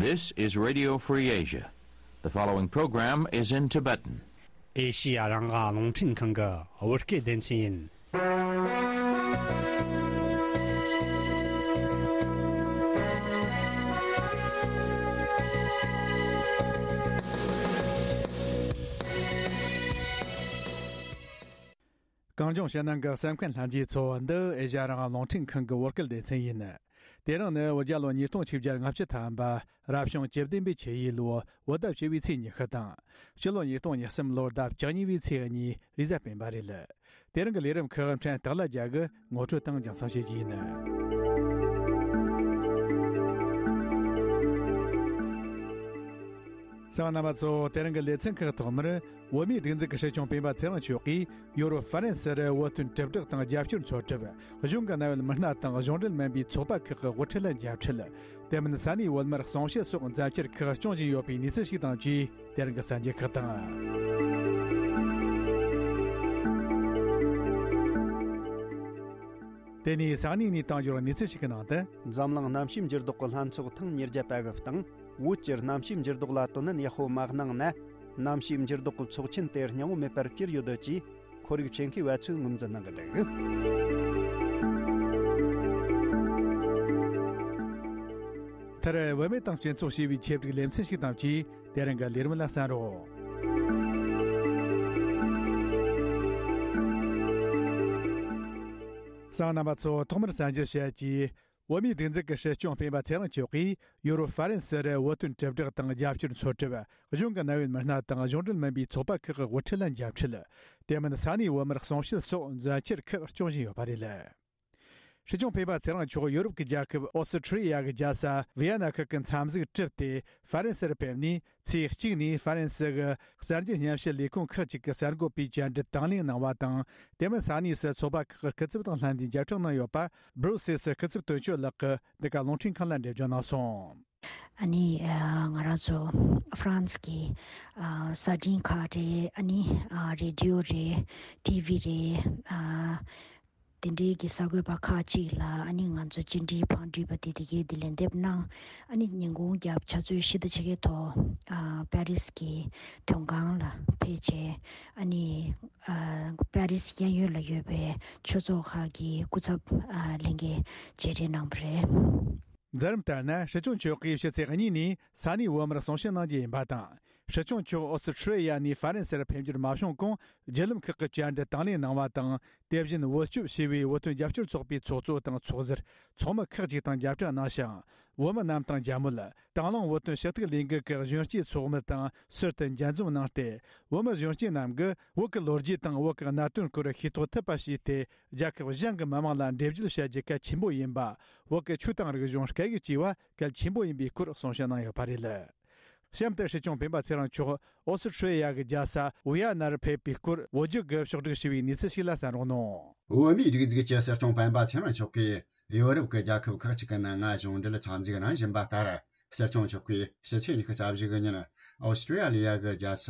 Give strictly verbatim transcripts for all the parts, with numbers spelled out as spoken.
This is Radio Free Asia. The following program is in Tibetan. ཨེ་ཤི་ཡ་རང་དབང་རླུང་འཕྲིན་ཁང་གི་བོད་སྐད་སྡེ་ཚན་ཡིན། གངས་ལྗོངས་ཕྱི་ནང་གི་གསན་མཁན་ལྷན་རྒྱས་ཚོ། འདི་ཨེ་ཤ་ཡ་རང་དབང་རླུང་འཕྲིན་ཁང་གི་བོད་སྐད་སྡེ་ཚན་ཡིན། དེ་རིང་ནི་བོད་རྒྱལ་ལོ་ཉིས་སྟོང་ཆིག་བརྒྱ་ལྔ་བཅུ་ཐམ་པ། རབ་བྱུང་བཅུ་བདུན་པའི་ཆུ་ཡོས་ལོ་བོད་ཟླ་བཅུ་བའི་ཚེས་ཉི་ཤུ་དང་། སྤྱི་ལོ་ཉིས་སྟོང་ཉེར་གསུམ་ལོར་ཟླ་བཅུ་གཉིས་པའི་ཚེས་གཉིས་རེས་གཟའ་སྤེན་པ་རེད། དེ་རིང་གི་ལས་རིམ་ཁག་ཕྲན་སྟག་ལྷ་རྒྱལ་གྱིས་ངོ་སྤྲོད་དང་རྒྱང་སྲིང་བྱེད་རྒྱུ་ཡིན། གསན་མཁན་རྣམ་པ་ཚོ། དེ་རིང་གི་ལེ་ཚན་ཁག་ཐོག་མར། བོད་མིའི་སྒྲིག་འཛུགས་ཀྱི་སྲིད་སྐྱོང་སྤེན་པ་ཚེ་རིང་མཆོག་གིས་ཡོ་རོབ་ཧྥ་རན་སི་རུ་བོད་དོན་དྲིལ་བསྒྲགས་དང་རྒྱབ་སྐྱོར་ཚོགས་སྒྲུབ། གཞུང་གི་གནད་ཡོད་མི་སྣ་དང་གཞུང་འབྲེལ་མིན་པའི་ཚོགས་པ་ཁག་གི་དབུ་ཁྲིད་ལ་མཇལ་འཕྲད། དེ་མིན་ས་གནས་བོད་མིར་གསུང་བཤད་སོགས་མཛད་འཆར་ཁག་སྐྱོང་བཞིན་ཡོད་པའི་གནས་ཚུལ་ཞིག་དང་བཅས། དེ་རིང་གི་གསར་འགྱུར་ཁག་དང་། དེ་ནས་ས་གནས་ནས་བཏང་འབྱོར་གནས་ཚུལ་ཞིག་གི་ནང་དུ། འཛམ་གླིང་གནམ་གཤིས་འགྱུར་ལྡོག་གི་ལྷན་ཚོགས་ཐེངས་ཉེར་བརྒྱད་པ་གི་སྟེང་། བོད་ཀྱིས་གནམ་གཤིས་འགྱུར་ལྡོག་ལ་དོ་ནན་ཡག་པོ་མ་གནང་ན། གནམ་གཤིས་འགྱུར་ལྡོག་གི་ཚོགས་ཆེན་དེ་སྙིང་བོ་མེད་པར་གྱུར་ཡོད་ཅེས་ཁོར་ཡུག་ཆེད་མཁས་པ་ཚོས་ངོས་འཛིན་གནང་གི་འདུག། མཐར། བུད་མེད་དང་སྤྱི་ཚོགས་ཞེས་པའི་ཆེད་བསྒྲིགས་ལེ་ཚན་ཞིག་དང་བཅས། དེ་རིང་གི་ལས་རིམ་ལ་གསན་རོགས། གསན་མཁན་རྣམ་པ་ཚོ། ཐོག་མར་གསར་འགྱུར་བཤད་རྒྱུ། བོད་མིའི་སྒྲིག་འཛུགས་ཀྱི་སྲིད་སྐྱོང་སྤེན་པ་ཚེ་རིང་མཆོག་གིས་ཡོ་རོབ་ཧྥ་རན་སི་རུ་བོད་དོན་དྲིལ་བསྒྲགས་དང་རྒྱབ་སྐྱོར་ཚོགས་སྒྲུབ། གཞུང་གི་གནད་ཡོད་མི་སྣ་དང་གཞུང་འབྲེལ་མིན་པའི་ཚོགས་པ་ཁག་གི་དབུ་ཁྲིད་ལ་མཇལ་འཕྲད། དེ་མིན་ས་གནས་བོད་མིར་གསུང་བཤད་སོགས་མཛད་འཆར་ཁག་སྐྱོང་བཞིན་ཡོད་པ་རེད། སྲིད་སྐྱོང་སྤེན་པ་ཚེ་རིང་མཆོག་ཡོ་རོབ་ཀྱི་རྒྱལ་ཁབ་ཨོ་སི་ཁྲི་ཡ་གི་རྒྱལ་ས་ཝི་ཡ་ན་ཁུལ་གྱི་མཚམས་གཟིགས་གྲུབ་སྟེ་ཧྥ་རན་སིར་ཕེབས་ནས། ཚེས་གཅིག་ནས་ཧྥ་རན་སི་གི་གསར་འགྱུར་སྙན་ཞུ་ལས་ཁུངས་ཁག་ཅིག་གི་གསར་འགོད་པའི་བཅར་འདྲི་དང་ལེན་གནང་བ་དང་། དེ་མིན་ས་གནས་སུ་ཚོགས་པ་ཁག་གི་སྐུ་ཚབ་དང་ལྷན་དུ་མཇལ་འཕྲད་གནང་ཡོད་པ། སྦྲུ་སེལ་སི་སྐུ་ཚབ་དོན་གཅོད་ལགས་ཀྱིས་འདི་ག་རླུང་འཕྲིན་ཁང་ལ་འགྲེལ་བརྗོད་གནང་སོང་། ཨ་ནི་ཨ་ང་རང་ཚོ་ཧྥ་རན་སི་གི་ཨ་གསར་འཕྲིན་ཁག་རེད། ཨ་ནི་ཨ་རེ་ཌི་ཡོ་རེད། ཊི་ཝི་རེད། ཨ་དེ་འདྲའི་གི་གསར་འགོད་པ་ཁག་ཅིག་ལ་ཨ་ནི་ང་ཚོ་བཅར་འདྲིའི་ཕང་འགྲུལ་པ་དེ་དེ་གའི་དེ་ལན་འདེབས་གནང་། ཨ་ནི་ཉིན་གུང་རྒྱབ་ཆུ་ཚོད་བཞི་དང་ཕྱེད་ཀའི་ཐོག་ཨ་པེ་རིས་ཀྱི་དོན་ཁང་ལ་ཕེབས་བྱས། ཨ་ནི་ཨ་པེ་རིས་གཡས་གཡོན་ལ་ཡོད་པའི་ཆོས་ཚོགས་ཁག་གི་སྐུ་ཚབ་ཨ་ལྷན་རྒྱས་མཇལ་འཕྲད་གནང་བ་རེད། མཛད་རིམ་ལྟར་ན། སྲིད་སྐྱོང་མཆོག་གིས་ཕྱི་ཚེས་གཉིས་ནས་ས་གནས་བོད་མིར་གསུང་བཤད་གནང་རྒྱུ་ཡིན་པ་དང་། སྲིད་སྐྱོང་མཆོག་ཨོ་སི་ཁྲི་ཡ་ནས་ཧྥ་རན་སིར་ཕེབས་འབྱོར་མ་བྱུང་གོང་། བརྒྱུད་ལམ་ཁག་གི་བཅར་འདྲི་དང་ལེན་གནང་བ་དང་། དེ་བཞིན་བོད་སྐྱོབ་ཞེས་པའི་བོད་དོན་རྒྱབ་སྐྱོར་ཚོགས་པའི་ཚོགས་གཙོ་དང་ཚོགས་ཟུར། ཚོགས་མི་ཁག་ཅིག་དང་མཇལ་འཕྲད་གནང་ཞིང་། བོད་མི་རྣམས་དང་མཇལ་མོལ། དང་བླངས་བོད་དོན་ཞུ་གཏུག་ལས་འགུལ་གྱི་གཞོན་སྐྱེས་ཚོགས་མི་དང་ཟུར་དུ་མཇལ་འཛོམས་གནང་སྟེ། བོད་མི་གཞོན་སྐྱེས་རྣམས་ཀྱིས་བོད་ཀྱི་ལོ་རྒྱུས་དང་བོད་ཀྱི་གནད་དོན་སྐོར་ཤེས་རྟོགས་ཐུབ་པ་བྱས་ཏེ། རྒྱལ་ཁབ་གཞན་གྱི་མི་དམངས་ལ་འགྲེལ་བརྗོད་བྱ་རྒྱུ་གལ་ཆེན་པོ་ཡིན་པ། བོད་ཀྱི་ཆོས་དང་རིག་གཞུང་སྐད་ཡིག་བཅས་པ་གལ་ཆེན་པོ་ཡིན་པའི་སྐོར་གསུང་བཤད་གནང་ཡོད་པ་རེད། གཤམ་དུ་སྲིད་སྐྱོང་སྤེན་པ་ཚེ་རིང་མཆོག་ཨོ་སི་ཁྲི་ཡ་གི་རྒྱལ་ས་ཝི་ཡ་ནར་ཕེབས་པའི་སྐོར་བོད་བརྒྱུད་ཀྱིས་ཕྱོགས་བསྒྲིགས་བྱས་པའི་གནས་ཚུལ་ཞིག་ལ་གསན་རོགས་གནང་། བོད་མིའི་སྒྲིག་འཛུགས་ཀྱི་སྲིད་སྐྱོང་སྤེན་པ་ཚེ་རིང་མཆོག་གིས་ཡོ་རོབ་ཀྱི་རྒྱལ་ཁབ་ཁག་ཅིག་གི་ནང་ང་གཞུང་འབྲེལ་འཚམས་གཟིགས་གནང་བཞིན་པ་ལྟར། སྲིད་སྐྱོང་མཆོག་གིས་ཕྱི་ཚེས་ཉི་ཤུ་རྩ་བཞི་གི་ཉིན་ཨོ་སི་ཀྲི་ཡ་ལི་ཡ་གི་རྒྱལ་ས་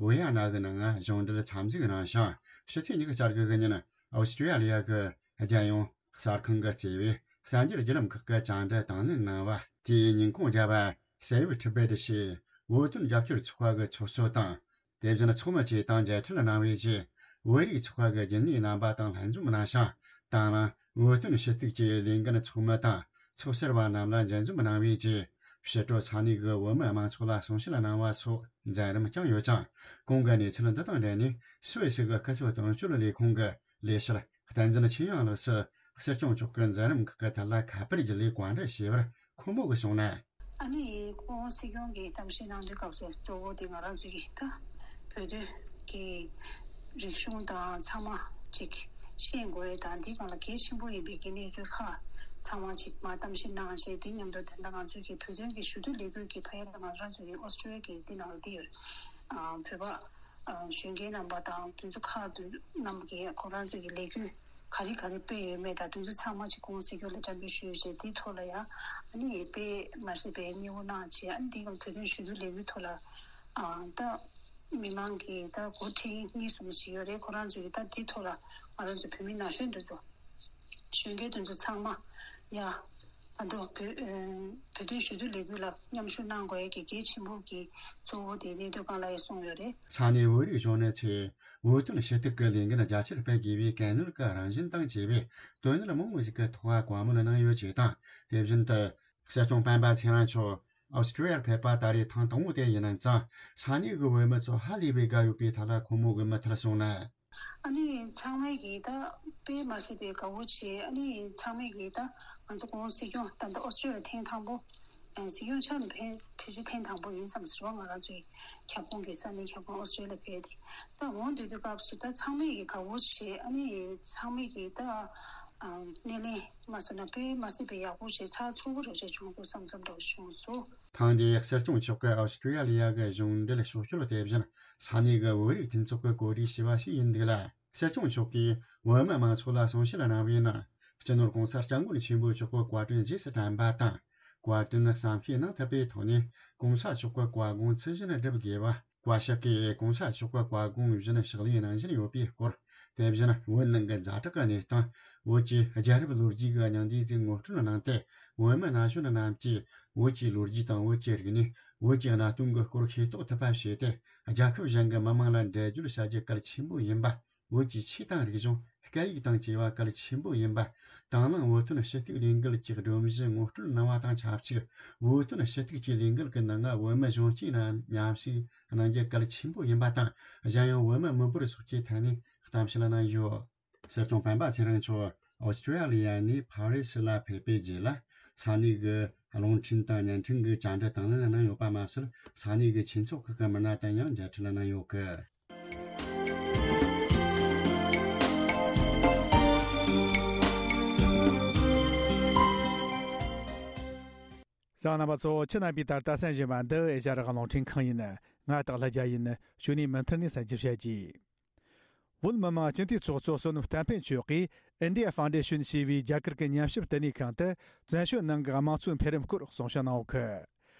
ཝི་ཡ་ན་གི་ནང་ང་གཞུང་འབྲེལ་འཚམས་གཟིགས་གནང་ཞིང་། ཕྱི་ཚེས་ཉི་ཤུ་རྩ་དགུ་གི་ཉིན་ཨོ་སི་ཀྲི་ཡ་ལི་ཡ་གི་རྒྱལ་ཡོངས་གསར་ཁང་གིས་གཙོས་པའི་གསར་འགྱུར་བརྒྱུད་ལམ་ཁག་གི་བཅར་འདྲི་དང་ལེན་གནང་བ། དེའི་ཉིན་གུང་རྒྱབ་པ། Save Tibet ཞེས་བོད་དོན་རྒྱབ་སྐྱོར་ཚོགས་པ་གི་ཚོགས་གཙོ་དང་། དེ་བཞིན་ཚོགས་མི་བཅས་དང་མཇལ་འཕྲད་གནང་བའི་རྗེས། བོད་རིགས་ཚོགས་པ་གི་རྒྱུན་ལས་རྣམ་པ་དང་ལྷན་འཛོམས་གནང་ཞིང་། དང་བླངས་བོད་དོན་ཞུ་གཏུག་གི་ལས་འགན་ཚོགས་མི་དང་ཚོགས་ཟུར་བ་རྣམས་ལ་མཇལ་འཛོམས་གནང་བའི་རྗེས། ཕྱི་དྲོ་ས་གནས་ཀྱི་བོད་མི་མང་ཚོགས་ལ་གསུང་བཤད་གནང་བ་སོགས་མཛད་རིམ་བསྐྱངས་ཡོད་ཅིང་། གོང་གི་གནས་ཚུལ་འདི་དང་འབྲེལ་ནས་སུད་སི་གི་སྐུ་ཚབ་དོན་གཅོད་ལས་ཁུངས་ཀྱི་ལས་བྱེད་བསྟན་འཛིན་ཆོས་དབྱངས་ལགས་སུ་སྲིད་སྐྱོང་མཆོག་གི་མཛད་རིམ་ཁག་གི་ཐད་ལ་ཁ་པར་བརྒྱུད་ལས་བཀའ་འདྲི་ཞུས་པར། ཁོང་མོ་གིས་གསུངས་ན། ཨ་ནི་སྐུ་ངོ་སྲིད་སྐྱོང་གིས་གཏམ་བཤད་གནང་དུས་སྐབས་སུ་གཙོ་བོ་དེ་ང་རང་ཚོ་གི་ད་བོད་དོན་གྱི་རིག་གཞུང་དང་ཚང་མ་ཅིག་ཤེས་དགོས་རེད། དང་འདི་སྒང་ལ་གལ་ཆེན་པོ་ཡིན་པའི་གི་གནས་ཚུལ་ཁག་ཚང་མ་ཅིག་མར་གཏམ་བཤད་གནང་བྱས། དེ་མཉམ་དུ་ད་ལྟ་ང་ཚོ་གི་བོད་དོན་གྱི་ཞུ་གཏུག་ལས་འགུལ་གྱི་ཕ་ཡུལ་ལ་ང་རང་ཚོ་གི་ཨོ་སི་ཀྲི་ཡ་གི་འདི་ནང་ལ་འདི་ཡོད། ཨ་བོད་པ་ཨ་གཞོན་སྐྱེས་རྣམ་པ་དང་དེ་ཚོ་ཁག་དེ་རྣམས་ཀྱིས་ཁོ་རང་ཚོ་གི་ལས་འགུལ་ག་རེ་ག་རེ་སྤེལ་ཡོད་མེད་དང་དེ་ཚོ་ཚང་མ་ཅིག་སྐུ་ངོ་སྲིད་སྐྱོང་ལ་བཅར་འདྲི་ཞུས་བྱས། དེའི་ཐོག་ལ་ཡང་ཨ་ནི་དཔེ་མ་སྲིད་པའི་མཉེས་པོ་གནང་བྱས། ཨ་ནི་དེའི་སྒང་བོད་དོན་ཞུ་གཏུག་ལས་འགུལ་ཐོག་ལ་ཨ་ད་མི་མང་གིས་ད་འགོ་ཁྲིད་གཉིས་གསུམ་ཞིག་ཡོད་རེད། ཁོ་རང་ཚོ་གིས་ད་དེའི་ཐོག་ལ་ང་རང་ཚོ་བོད་མི་ན་གཞོན་དེ་ཚོ་གཞོན་སྐྱེས་དེ་ཚོ་ཚང་མ་ཡ་ད་ ད་དུང་བོད་ཨ་བོད་དོན་ཞུ་གཏུག་ལས་འགུལ་ལ་མཉམ་ཞུགས་གནང་དགོས་ཡས་ཀྱི་གལ་ཆེན་པོ་གི་གཙོ་བོ་དེ་གནད་དོན་སྒང་ལ་ཡང་གསུངས་ཡོད་རེད། ས་གནས་བོད་རིགས་གཞོན་ནུ་ཚོས་བོད་དོན་ཞུ་གཏུག་གི་ལས་འགུལ་རྒྱ་ཆེར་སྤེལ་དགོས་པའི་གལ་གནད་ཀྱི་རང་བཞིན་དང་བཅས་པའི་དོན་གནད་མང་པོ་ཞིག་གི་ཐོག་བཀའ་མོལ་གནང་ཡོད་ཅེས་དང་། དེ་བཞིན་དུ། སྲིད་སྐྱོང་སྤེན་པ་ཚེ་རིང་མཆོག་ཨོ་སི་ཀྲི་ཡར་ཕེབས་པ་ད་རེས་ཐེངས་དང་པོ་དེ་ཡིན་ཙང་། ས་གནས་ཀྱི་བོད་མི་ཚོ་ཧ་ལས་པའི་དགའ་ཡོད་པའི་ཐད་ལ་ཁོང་མོ་གི་མུ་མཐུད་གསུངས་ན། ཨ་ནི་ཚང་མས་ཀྱིས་ད་དཔེ་མ་སྲིད་པའི་དགའ་བོ་བྱས། ཨ་ནི་ཚང་མས་ཀྱིས་ད་ང་ཚོ་གོང་སྲིད་སྐྱོང་ད་ལྟ་ཨོ་སི་ཀྲི་ཡ་ལ་ཐེངས་དང་པོ་ཨ་སྲིད་སྐྱོང་ཆགས་ནས་ཕེབས་ཕལ་ཆེར་ཐེངས་དང་པོ་ཡིན་བསམ་ཟེར་བ། ང་རང་ཚོའི་ཁྱབ་ཁོངས་ཀྱི་ས་གནས་ཁྱབ་ཁོངས་ཨོ་སི་ཀྲི་ཡ་ལ་ཕེབས་ཏེ། ད་འོང་དུས་དུས་སྐབས་སུ་ད་ཚང་མས་ཀྱིས་དགའ་བོ་བྱས། ཨ་ནི་ཚང་མས་ཀྱིས་ད་ཨ་སྣེ་ལེན་མ་སོང་ན་དཔེ་མ་སྲིད་པའི་ཡག་པོ་བྱས། ཚགས་ཚུད་པོ་འདྲ་བྱས་བྱུང་སོང་བསམ་བསམ་འདྲ་བྱུང་སོང་། ཐེངས་འདིའི་སྲིད་སྐྱོང་མཆོག་གི་ཨོ་སི་ཀྲི་ཡ་ལི་ཡ་གི་གཞུང་འབྲེལ་ཕྱོགས་བསྐྱོད་དེ་བཞིན་ས་གནས་ཀྱི་བོད་རིགས་མཐུན་ཚོགས་ཀྱིས་གོ་སྒྲིག་བྱས་པ་ཞིག་ཡིན་འདུག་ལ། སྲིད་སྐྱོང་མཆོག་གིས་བོད་མི་མང་ཚོགས་ལ་གསུང་བཤད་གནང་བའི་ནང་། སྤྱི་ནོར་གོང་ས་སྐྱབས་མགོན་ཆེན་པོ་མཆོག་གི་བཀའ་དྲིན་རྗེས་སུ་དྲན་པ་དང་། བཀའ་དྲིན་བསམ་ཤེས་གནང་ཐུབ་པའི་ཐོག་ནས་གོང་ས་མཆོག་གི་བཀའ་དགོངས་ཚུལ་བཞིན་སྒྲུབ་དགོས་པ། བཀའ་ཤག་གིས་གོང་ས་མཆོག་གི་བཀའ་དགོངས་བཞིན་ཕྱག་ལས་གནང་བཞིན་ཡོད་པའི་སྐོར། དེ་བཞིན་བོད་ནང་གི་ཛ་དྲག་གི་གནས་སྟངས། བོད་ཀྱི་རྒྱལ་རབས་ལོ་རྒྱུས་ཀྱི་སྙིང་བསྡུས་ཅིག་ངོ་སྤྲོད་གནང་སྟེ། བོད་མི་ན་གཞོན་རྣམས་ཀྱིས་བོད་ཀྱི་ལོ་རྒྱུས་དང་བོད་ཀྱི་རིག་གནས། བོད་ཀྱི་གནའ་དེང་གི་སྐོར་ཤེས་རྟོགས་ཐུབ་པ་བྱས་ཏེ། རྒྱལ་ཁབ་གཞན་གྱི་མི་དམངས་ལ་འགྲེལ་བརྗོད་བྱ་རྒྱུ་གལ་ཆེན་པོ་ཡིན་པ། བོད་ཀྱི་ཆོས་དང་རིག་གཞུང་། སྐད་ཡིག་དང་བཅས་པ་གལ་ཆེན་པོ་ཡིན་པ། དང་བླངས་བོད་དོན་ཞུ་གཏུག་ལས་འགུལ་གྱི་སྒྲོམ་གཞི་ངོ་སྤྲོད་གནང་བ་དང་ཆབས་ཅིག་བོད་དོན་ཞུ་གཏུག་གི་ལས་འགུལ་གྱི་ནང་བོད་མི་གཞོན་སྐྱེས་རྣམས་མཉམ་ཞུགས་གནང་རྒྱུ་གལ་ཆེན་པོ་ཡིན་པ་དང་། གཞན་ཡང་བོད་མི་མི་འབོར་སོགས་ཀྱི་ཐད་ནས་གཏམ་བཤད་གནང་ཡོད། སྲིད་སྐྱོང་སྤེན་པ་ཚེ་རིང་མཆོག་ཨོ་སི་ཀྲི་ཡ་ལི་ཡ་ནས་ཕ་རི་སི་ལ་ཕེབས་པའི་རྗེས་ལ། ས་གནས་ཀྱི་རླུང་འཕྲིན་དང་བརྙན་འཕྲིན་གྱི་བཅར་འདྲི་དང་ལེན་གནང་ཡོད་པ་མ་ཟད། ས་གནས་ཀྱི་ཆོས་ཚོགས་ཁག་གི་མི་སྣ་དང་ཡང་མཇལ་འཕྲད་གནང་ཡོད་སྐད། གསན་མཁན་རྣམ་པ་ཚོ། ཁྱེད་རྣམ་པས་ད་ལྟ་གསན་བཞིན་པ་འདི་ཨེ་ཤ་ཡ་རང་དབང་རླུང་འཕྲིན་ཁང་ཡིན། ང་སྟག་ལྷ་རྒྱལ་ཡིན། གཞུག་ནས་མུ་མཐུད་ནས་གསན་རྒྱུ་བྱེད་ཀྱིས། བོད་མི་མང་སྤྱི་འཐུས་ཚོགས་གཙོ་བསོད་ནམས་བསྟན་ཕུན་མཆོག་གིས་India Foundation ཞེས་པའི་རྒྱ་གར་གྱི་ཉམས་ཞིབ་བསྟི་གནས་ཁང་དུ་བཙན་བྱོལ་ནང་གི་དམངས་གཙོའི་འཕེལ་རིམ་སྐོར་གསུང་བཤད་གནང་ཡོད་སྐད།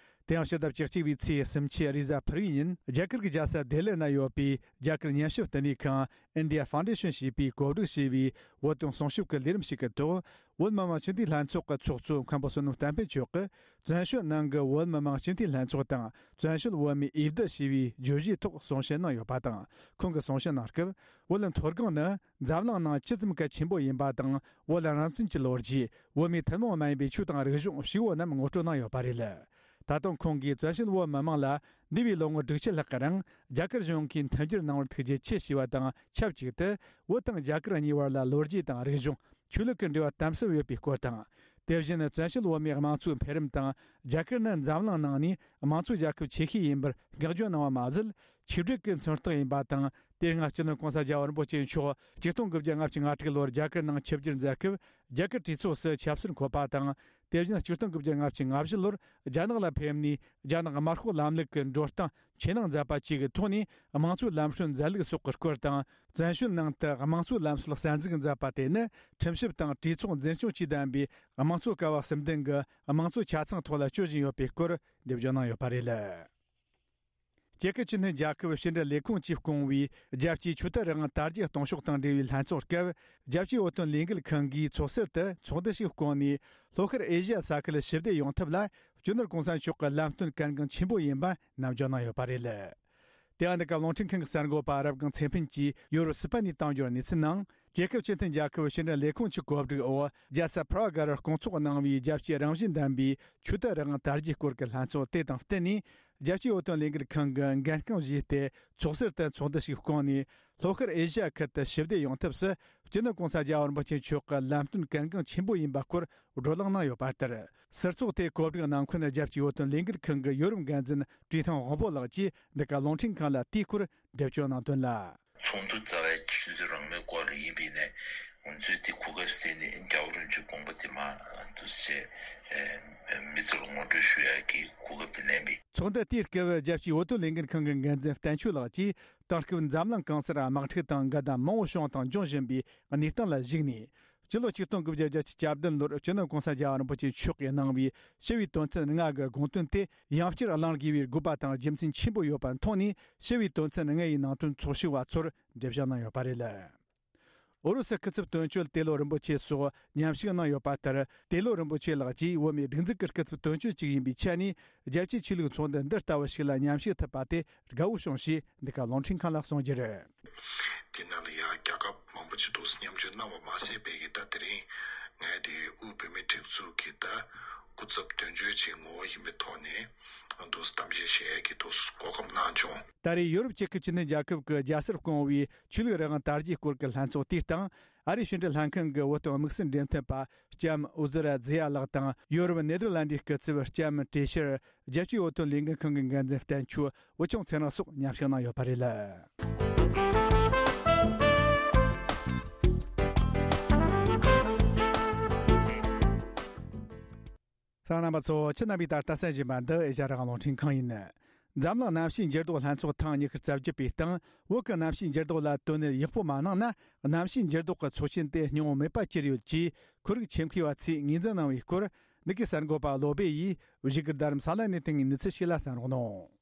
དེ་ཡང་ཕྱི་ཟླ་བཅུ་གཅིག་པའི་ཚེས་སུམ་ཅུ་རེས་གཟའ་ཕུར་བུའི་ཉིན་རྒྱ་གར་གྱི་རྒྱལ་ས་ལྡི་ལིར་གནས་ཡོད་པའི་རྒྱ་གར་ཉམས་ཞིབ་བསྟི་གནས་ཁང་India Foundation ཞེས་པས་གོ་སྒྲིག་བྱས་པའི་བོད་དོན་གསུང་ཞིབ་ཀྱི་ལས་རིམ་ཞིག་གི་ཐོག་བོད་མི་མང་སྤྱི་འཐུས་ལྷན་ཚོགས་ཀྱི་ཚོགས་གཙོ་མཁན་པོ་བསོད་ནམས་བསྟན་ཕུན་མཆོག་གིས། བཙན་བྱོལ་ནང་གི་བོད་མི་མང་སྤྱི་འཐུས་ལྷན་ཚོགས་དང་བཙན་བྱོལ་བོད་མིའི་འོས་བསྡུ་ཞེས་པའི་བརྗོད་གཞིའི་ཐོག་གསུང་བཤད་གནང་ཡོད་པ་དང་། ཁོང་གིས་གསུང་བཤད་གནང་སྐབས། བོད་མཐོ་སྒང་ནི་འཛམ་གླིང་ནང་ཇི་ཙམ་གལ་ཆེན་པོ་ཡིན་པ་དང་། བོད་རང་བཙན་གྱི་ལོ་རྒྱུས། བོད་མིའི་ཐུན་མོང་མ་ཡིན་པའི་ཆོས་དང་རིག་གཞུང་ཞེས་པ་རྣམས་ངོ་སྤྲོད་གནང་ཡོད་པ་རེད། ད་དུང་ཁོང་གིས་བཙན་བྱོལ་བོད་མི་མང་ལ་འདས་པའི་ལོ་ངོ་དྲུག་ཅུ་ལྷག་གི་རིང་རྒྱ་གར་གཞུང་གིས་མཐུན་འགྱུར་གནང་བར་ཐུགས་རྗེ་ཆེ་ཞེས་པ་དང་ཆབས་ཅིག་ཏུ། བོད་དང་རྒྱ་གར་གཉིས་བར་ལ་ལོ་རྒྱུས་དང་རིག་གཞུང་། ཆོས་ལུགས་ཀྱི་འབྲེལ་བ་དམ་ཟབ་ཡོད་པའི་སྐོར་དང་། དེ་བཞིན་བཙན་བྱོལ་བོད་མིའི་དམངས་གཙོའི་འཕེལ་རིམ་དང་། རྒྱ་གར་ནི་འཛམ་གླིང་ནང་ནས་དམངས་གཙོའི་རྒྱལ་ཁབ་ཆེ་ཤོས་ཡིན་པར་བསྔགས་བརྗོད་གནང་བ་མ་ཟད། ཆིག་སྒྲིལ་གྱི་མཚོན་རྟགས་ཡིན་པ་དང་། དེ་སྔ་སྤྱི་ནོར་གོང་ས་རྒྱལ་བ་རིན་པོ་ཆེ་མཆོག་ཆིག་སྟོང་དགུ་བརྒྱ་ལྔ་བཅུ་ང་དྲུག་ལོར་རྒྱ་གར་ནང་ཆིབས་བསྒྱུར་མཛད་སྐབས། རྒྱ་གར་གྲོས་ཚོགས་སུ་ཆབ་སྲིད་འཁོད་པ་དང་། དེ་བཞིན་ཆིག་སྟོང་དགུ་བརྒྱ་ལྔ་བཅུ་ང་བཞི་ལོར་རྒྱ་ནག་ལ་ཕེབས་ནས། རྒྱ་ནག་དམར་ཤོག་ལམ་ལུགས་ཀྱི་འགྲོ་སྟངས་ཇེ་ནག་མཛད་པ་བཅས་ཀྱི་ཐོག་ནས། དམངས་གཙོའི་ལམ་སྲོལ་མཛད་ལུགས་སོགས་ཀྱི་སྐོར་དང་། བཙན་བྱོལ་ནང་དུ་དམངས་གཙོའི་ལམ་སྲོལ་གསར་འཛུགས་མཛད་པ་དེ་ནི། ཁྲིམས་ཞིབ་དང་གྲོས་ཚོགས་འཛིན་སྐྱོང་བཅས་ལྡན་པའི་དམངས་གཙོ་ཀ་བ་གསུམ་ལྡན་གྱི་དམངས་གཙོ་ཆ་ཚང་ཐོག་ལ་སྤྱོད་བཞིན་ཡོད་པའི་སྐོར་འགྲེལ་བརྗོད་གནང་ཡོད་པ་རེད། རྒྱལ་ཁབ་སྤྱི་མཐུན་རྒྱལ་ཁབ་ཕྱི་འབྲེལ་ལས་ཁུངས་ཀྱིས་བསྐོངས་པའི་རྒྱལ་སྤྱིའི་ཆོས་དད་རང་དབང་དར་རྒྱས་གཏོང་ཕྱོགས་དང་འབྲེལ་བའི་ལྷན་ཚོགས་སྐབས། རྒྱལ་སྤྱིའི་བོད་དོན་ལས་འགུལ་ཁང་གིས་ཚོགས་ཟུར་དུ་ཚོགས་འདུ་ཞིག་བསྐོངས་ནས། ལྷོ་ཤར་ཨེ་ཤི་ཡ་ས་ཁུལ་ཞི་བདེ་ཡོང་ཐབས་ལ། སྤྱི་ནོར་གོང་ས་མཆོག་གི་ལམ་སྟོན་གལ་འགངས་ཆེན་པོ་ཡིན་པ་ནམ་རྒྱུན་གནང་ཡོད་པ་རེད། དེ་ཡང་འདི་ག་རླུང་འཕྲིན་ཁང་གི་གསར་འགོད་པ་རབ་སྒང་ཚེ་ཕུན་གྱིས་ཡོ་རོབ་སི་པན་ནས་བཏང་འབྱོར་གནས་ཚུལ་ནང་། རྒྱལ་ཁབ་སྤྱི་མཐུན་རྒྱལ་ཁབ་ཕྱི་འབྲེལ་ལས་ཁུངས་ཀྱི་གོ་སྒྲིག་འོག་རྒྱལ་ས་པྲ་གྷ་རུ་སྐོང་ཚོགས་གནང་བའི་རྒྱལ་སྤྱིའི་རང་བཞིན་ལྡན་པའི་ཆོས་དད་རང་དབང་དར་རྒྱས་སྐོར་གྱི་ལྷན་ཚོགས་དེ་དང་བསྟུན་ནས། རྒྱལ་སྤྱིའི་བོད་དོན་ལས་འགུལ་ཁང་གི་འགན་རྐང་བཞེས་ཏེ། ཚོགས་ཟུར་དུ་ཚོགས་འདུ་ཞིག་བསྐོངས་ནས། ལྷོ་ཤར་ཨེ་ཤི་ཡ་ཁུལ་དུ་ཞི་བདེ་ཡོང་ཐབས་སུ། སྤྱི་ནོར་གོང་ས་རྒྱལ་བ་རིན་པོ་ཆེ་མཆོག་གི་ལམ་སྟོན་གལ་འགངས་ཆེན་པོ་ཡིན་པ་སྐོར་བགྲོ་གླེང་གནང་ཡོད་པ་ལྟར། ཟུར་ཚོགས་དེའི་གོ་སྒྲིག་གནང་མཁན་རྒྱལ་སྤྱིའི་བོད་དོན་ལས་འགུལ་ཁང་གི་ཡོ་རོབ་འགན་འཛིན་བཀྲས་ཐང་དབང་པོ་ལགས་ཀྱིས་འདི་ག་རླུང་འཕྲིན་ཁང་ལ་དེའི་སྐོར་འགྲེལ་བརྗོད་གནང་དོན་ལ། ཚོགས་འདུ་རྩ་བའི་ཆོས་དད་རང་མོས་སྐོར་ལ་ཡིན་པས་ནས། ང་ཚོས་དེ་གོ་སྐབས་ཟིན་ནས་རྒྱལ་བ་རིན་པོ་ཆེའི་དགོངས་པ་དེ་མ་འདུག་སེ་མི་ཚོར་ངོ་སྤྲོད་ཞུ་ཡག་གི་གོ་སྐབས་དེ་ལེན་པས། ཚོགས་འདུ་དེའི་སྐབས་རྒྱལ་སྤྱིའི་བོད་དོན་ལས་འགུལ་ཁང་གི་འགན་འཛིན་བསྟན་ཆོས་ལགས་ཀྱིས། དེང་སྐབས་འཛམ་གླིང་གང་སར་དམག་འཁྲུག་དང་འགལ་ཟླ་མང་པོ་བྱུང་དང་འབྱུང་བཞིན་པའི་གནས་སྟངས་ལ་གཞིགས་ནས། སྤྱི་ལོ་ཆིག་སྟོང་དགུ་བརྒྱ་བརྒྱད་ཅུ་གྱ་བདུན་ལོར་སྤྱི་ནོར་གོང་ས་རྒྱལ་བ་རིན་པོ་ཆེ་མཆོག་གིས་གནང་བའི་ཞི་བའི་དོན་ཚན་ལྔ་གི་དགོངས་དོན་དེ་ཡང་བསྐྱར་གླེང་དགོས་པའི་དགོས་པ་དང་རྒྱུ་མཚན་ཆེན་པོ་ཡོད་པ་མཐོང་ནས། ཞི་བའི་དོན་ཚན་ལྔ་ཡི་ནང་དོན་ཚོགས་ཞུགས་པ་ཚོར་འགྲེལ་བཤད་གནང་ཡོད་པ་རེད། ཨུ་རུ་སུ་སྐུ་ཚབ་དོན་གཅོད་ཏེ་ལོ་རིན་པོ་ཆེ་སོགས་མཉམ་ཞུགས་གནང་ཡོད་པ་ལྟར། ཏེ་ལོ་རིན་པོ་ཆེ་ལགས་ཀྱིས་བོད་མིའི་སྒྲིག་འཛུགས་ཀྱི་སྐུ་ཚབ་དོན་གཅོད་ཅིག་ཡིན་པའི་ཆ་ནས། རྒྱལ་སྤྱིའི་ཆོས་ལུགས་ཚོགས་འདུ་འདི་ལྟ་བུ་ཞིག་ལ་མཉམ་ཞུགས་ཐུབ་པ་དེ་དགའ་བོ་བྱུང་ཞེས་འདི་ག་རླུང་འཕྲིན་ཁང་ལ་གསུངས་རྒྱུ་རེད། དེ་ནང་ལ་ཡང་རྒྱལ་ཁབ་མང་པོ་ཅིག་ཏུ་མཉམ་ཞུགས་གནང་བ་མ་ཟད་པའི་གི་ད་དེ་རིང་ངས་དེ་དབུས་བོད་མིའི་སྒྲིག་འཛུགས་ཀྱི་ད་སྐུ་ཚབ་དོན་གཅོད་ཅིག་ངོ་བོ་ཡིན་པའི་ཐོག་ནས་དུ་གཏམ་བཤད་བྱེད་ཡས་ཀྱི་དུ་གོ་སྐབས་གནང་བྱུང་། ད་རེས་ཡོ་རོབ་རྒྱལ་ཁབ་བཅུ་བདུན་རྒྱལ་ཁབ་ཀྱི་རྒྱལ་སར་བསྐོངས་པའི་ཆོས་ལུགས་རང་དབང་དར་རྒྱས་སྐོར་གྱི་ལྷན་ཚོགས་དེའི་སྟེང་། ཨ་རིའི་ཕྱི་འབྲེལ་ལྷན་ཁང་གི་བོད་དོན་དམིགས་བསལ་འབྲེལ་མཐུད་པ་ལྕམ་ཨུ་ཛི་ར་ཛི་ཡ་ལགས་དང་། ཡོ་རོབ་ནེ་དར་ལན་ཌིའི་སྐུ་ཚབ་ལྕམ་ཏྲེ་ཤར། རྒྱལ་སྤྱིའི་བོད་དོན་ལས་འགུལ་ཁང་གི་འགན་འཛིན་བསྟན་ཆོས། བུ་ཆུང་ཚེ་རིང་སོགས་མཉམ་ཞུགས་གནང་ཡོད་པ་རེད། གསན་མཁན་རྣམ་པ་ཚོ། ཁྱེད་རྣམ་པས་ད་ལྟ་གསན་བཞིན་པ་འདི་ཨེ་ཤ་ཡ་རང་དབང་རླུང་འཕྲིན་ཁང་ཡིན། འཛམ་གླིང་གནམ་གཤིས་འགྱུར་ལྡོག་ལྷན་ཚོགས་ཐེངས་ཉི་ཤུ་རྩ་བརྒྱད་པའི་སྟེང་། བོད་ཀྱི་གནམ་གཤིས་འགྱུར་ལྡོག་ལ་དོ་སྣང་ཡག་པོ་མ་གནང་ན། གནམ་གཤིས་འགྱུར་ལྡོག་གི་ཚོགས་ཆེན་དེ་སྙིང་བོ་མེད་པ་གྱུར་ཡོད་ཅེས་ཁོར་ཡུག་ཆེད་མཁས་པ་ཚོས་ངོས་འཛིན་གནང་བའི་སྐོར། འདི་གའི་གསར་འགོད་པ་བློ་སྦེ་ཡིས་བཞུགས་སྒར་རྡ་རམ་ས་ལ་ནས་བཏང་བའི་གནས་ཚུལ་ཞིག་ལ་གསན་རོགས་གནང་།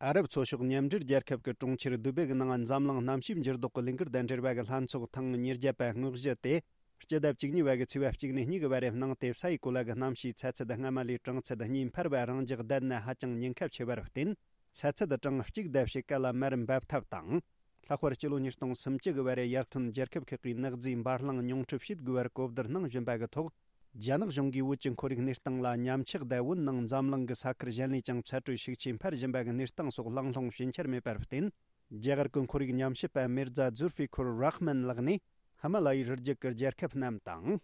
ཨ་རབ་ཚོ་ཤོག་མཉམ་འབྲེལ་རྒྱལ་ཁབ་ཀྱི་གྲོང་ཁྱེར་དུ་བེ་གི་ནང་འཛམ་གླིང་གནམ་གཤིས་འགྱུར་ལྡོག་གི་ལས་འགུལ་དང་འབྲེལ་བ་གི་ལྷན་ཚོགས་ཐེངས་ཉེར་བརྒྱད་པ་དངོས་གཞི་དེ། སྤྱི་ཟླ་བཅུ་གཉིས་པ་གི་ཚེས་པ་གཅིག་ནས་གཉིས་གི་བར་རེབ་གནང་སྟེ། ས་ཡི་གོ་ལ་གི་གནམ་གཤིས་ཚ་ཚད་སྔ་མ་ལས་གྲང་ཚད་གཉིས་འཕར་བ་རང་འཇགས་བསྡད་ན་ཧ་ཅང་ཉེན་ཁ་ཆེ་བ་རུ་བརྟེན། ཚ་ཚད་གྲངས་གཅིག་ལྡབ་ཞིག་ག་ལ་མར་འབབ་ཐབས་དང་། ལྷག་པར་སྤྱི་ལོ་ཉིས་སྟོང་སུམ་ཅུ་གི་བར་རེ་ཡར་ཐོན་རྒྱལ་ཁབ་ཁག་གིས་ནག་རྫས་འབར་རླངས་ཉུང་འཕྲི་བྱེད་དགོས་པར་གོ་བསྡུར་གནང་བཞིན་པ་གི་ཐོག་རྒྱ་ནག་གཞུང་གིས་བོད་ཀྱི་ཁོར་ཡུག་གནས་སྟངས་ལ་ཉམས་ཆག་དང་། བོད་ནང་འཛམ་གླིང་གི་ས་ཁུལ་གཞན་ལས་ཀྱང་ཚ་དྲོད་ཤུགས་ཆེ་འཕར་བཞིན་པ་གི་གནས་སྟངས་སོགས་གླེང་སློང་ཞུན་ཆར་མེད་པར་བརྟེན། རྒྱ་གར་གྱི་ཁོར་ཡུག་ཉམས་ཞིབ་པ་མིར་ཛ་ཛུར་ཧྥི་ཁུར་རཱ་ཧ་མན་ལགས་ནས། ཧི་མ་ལ་ཡའི་རི་རྒྱུད་ཀྱི་རྒྱལ་ཁབ་རྣམས་དང་།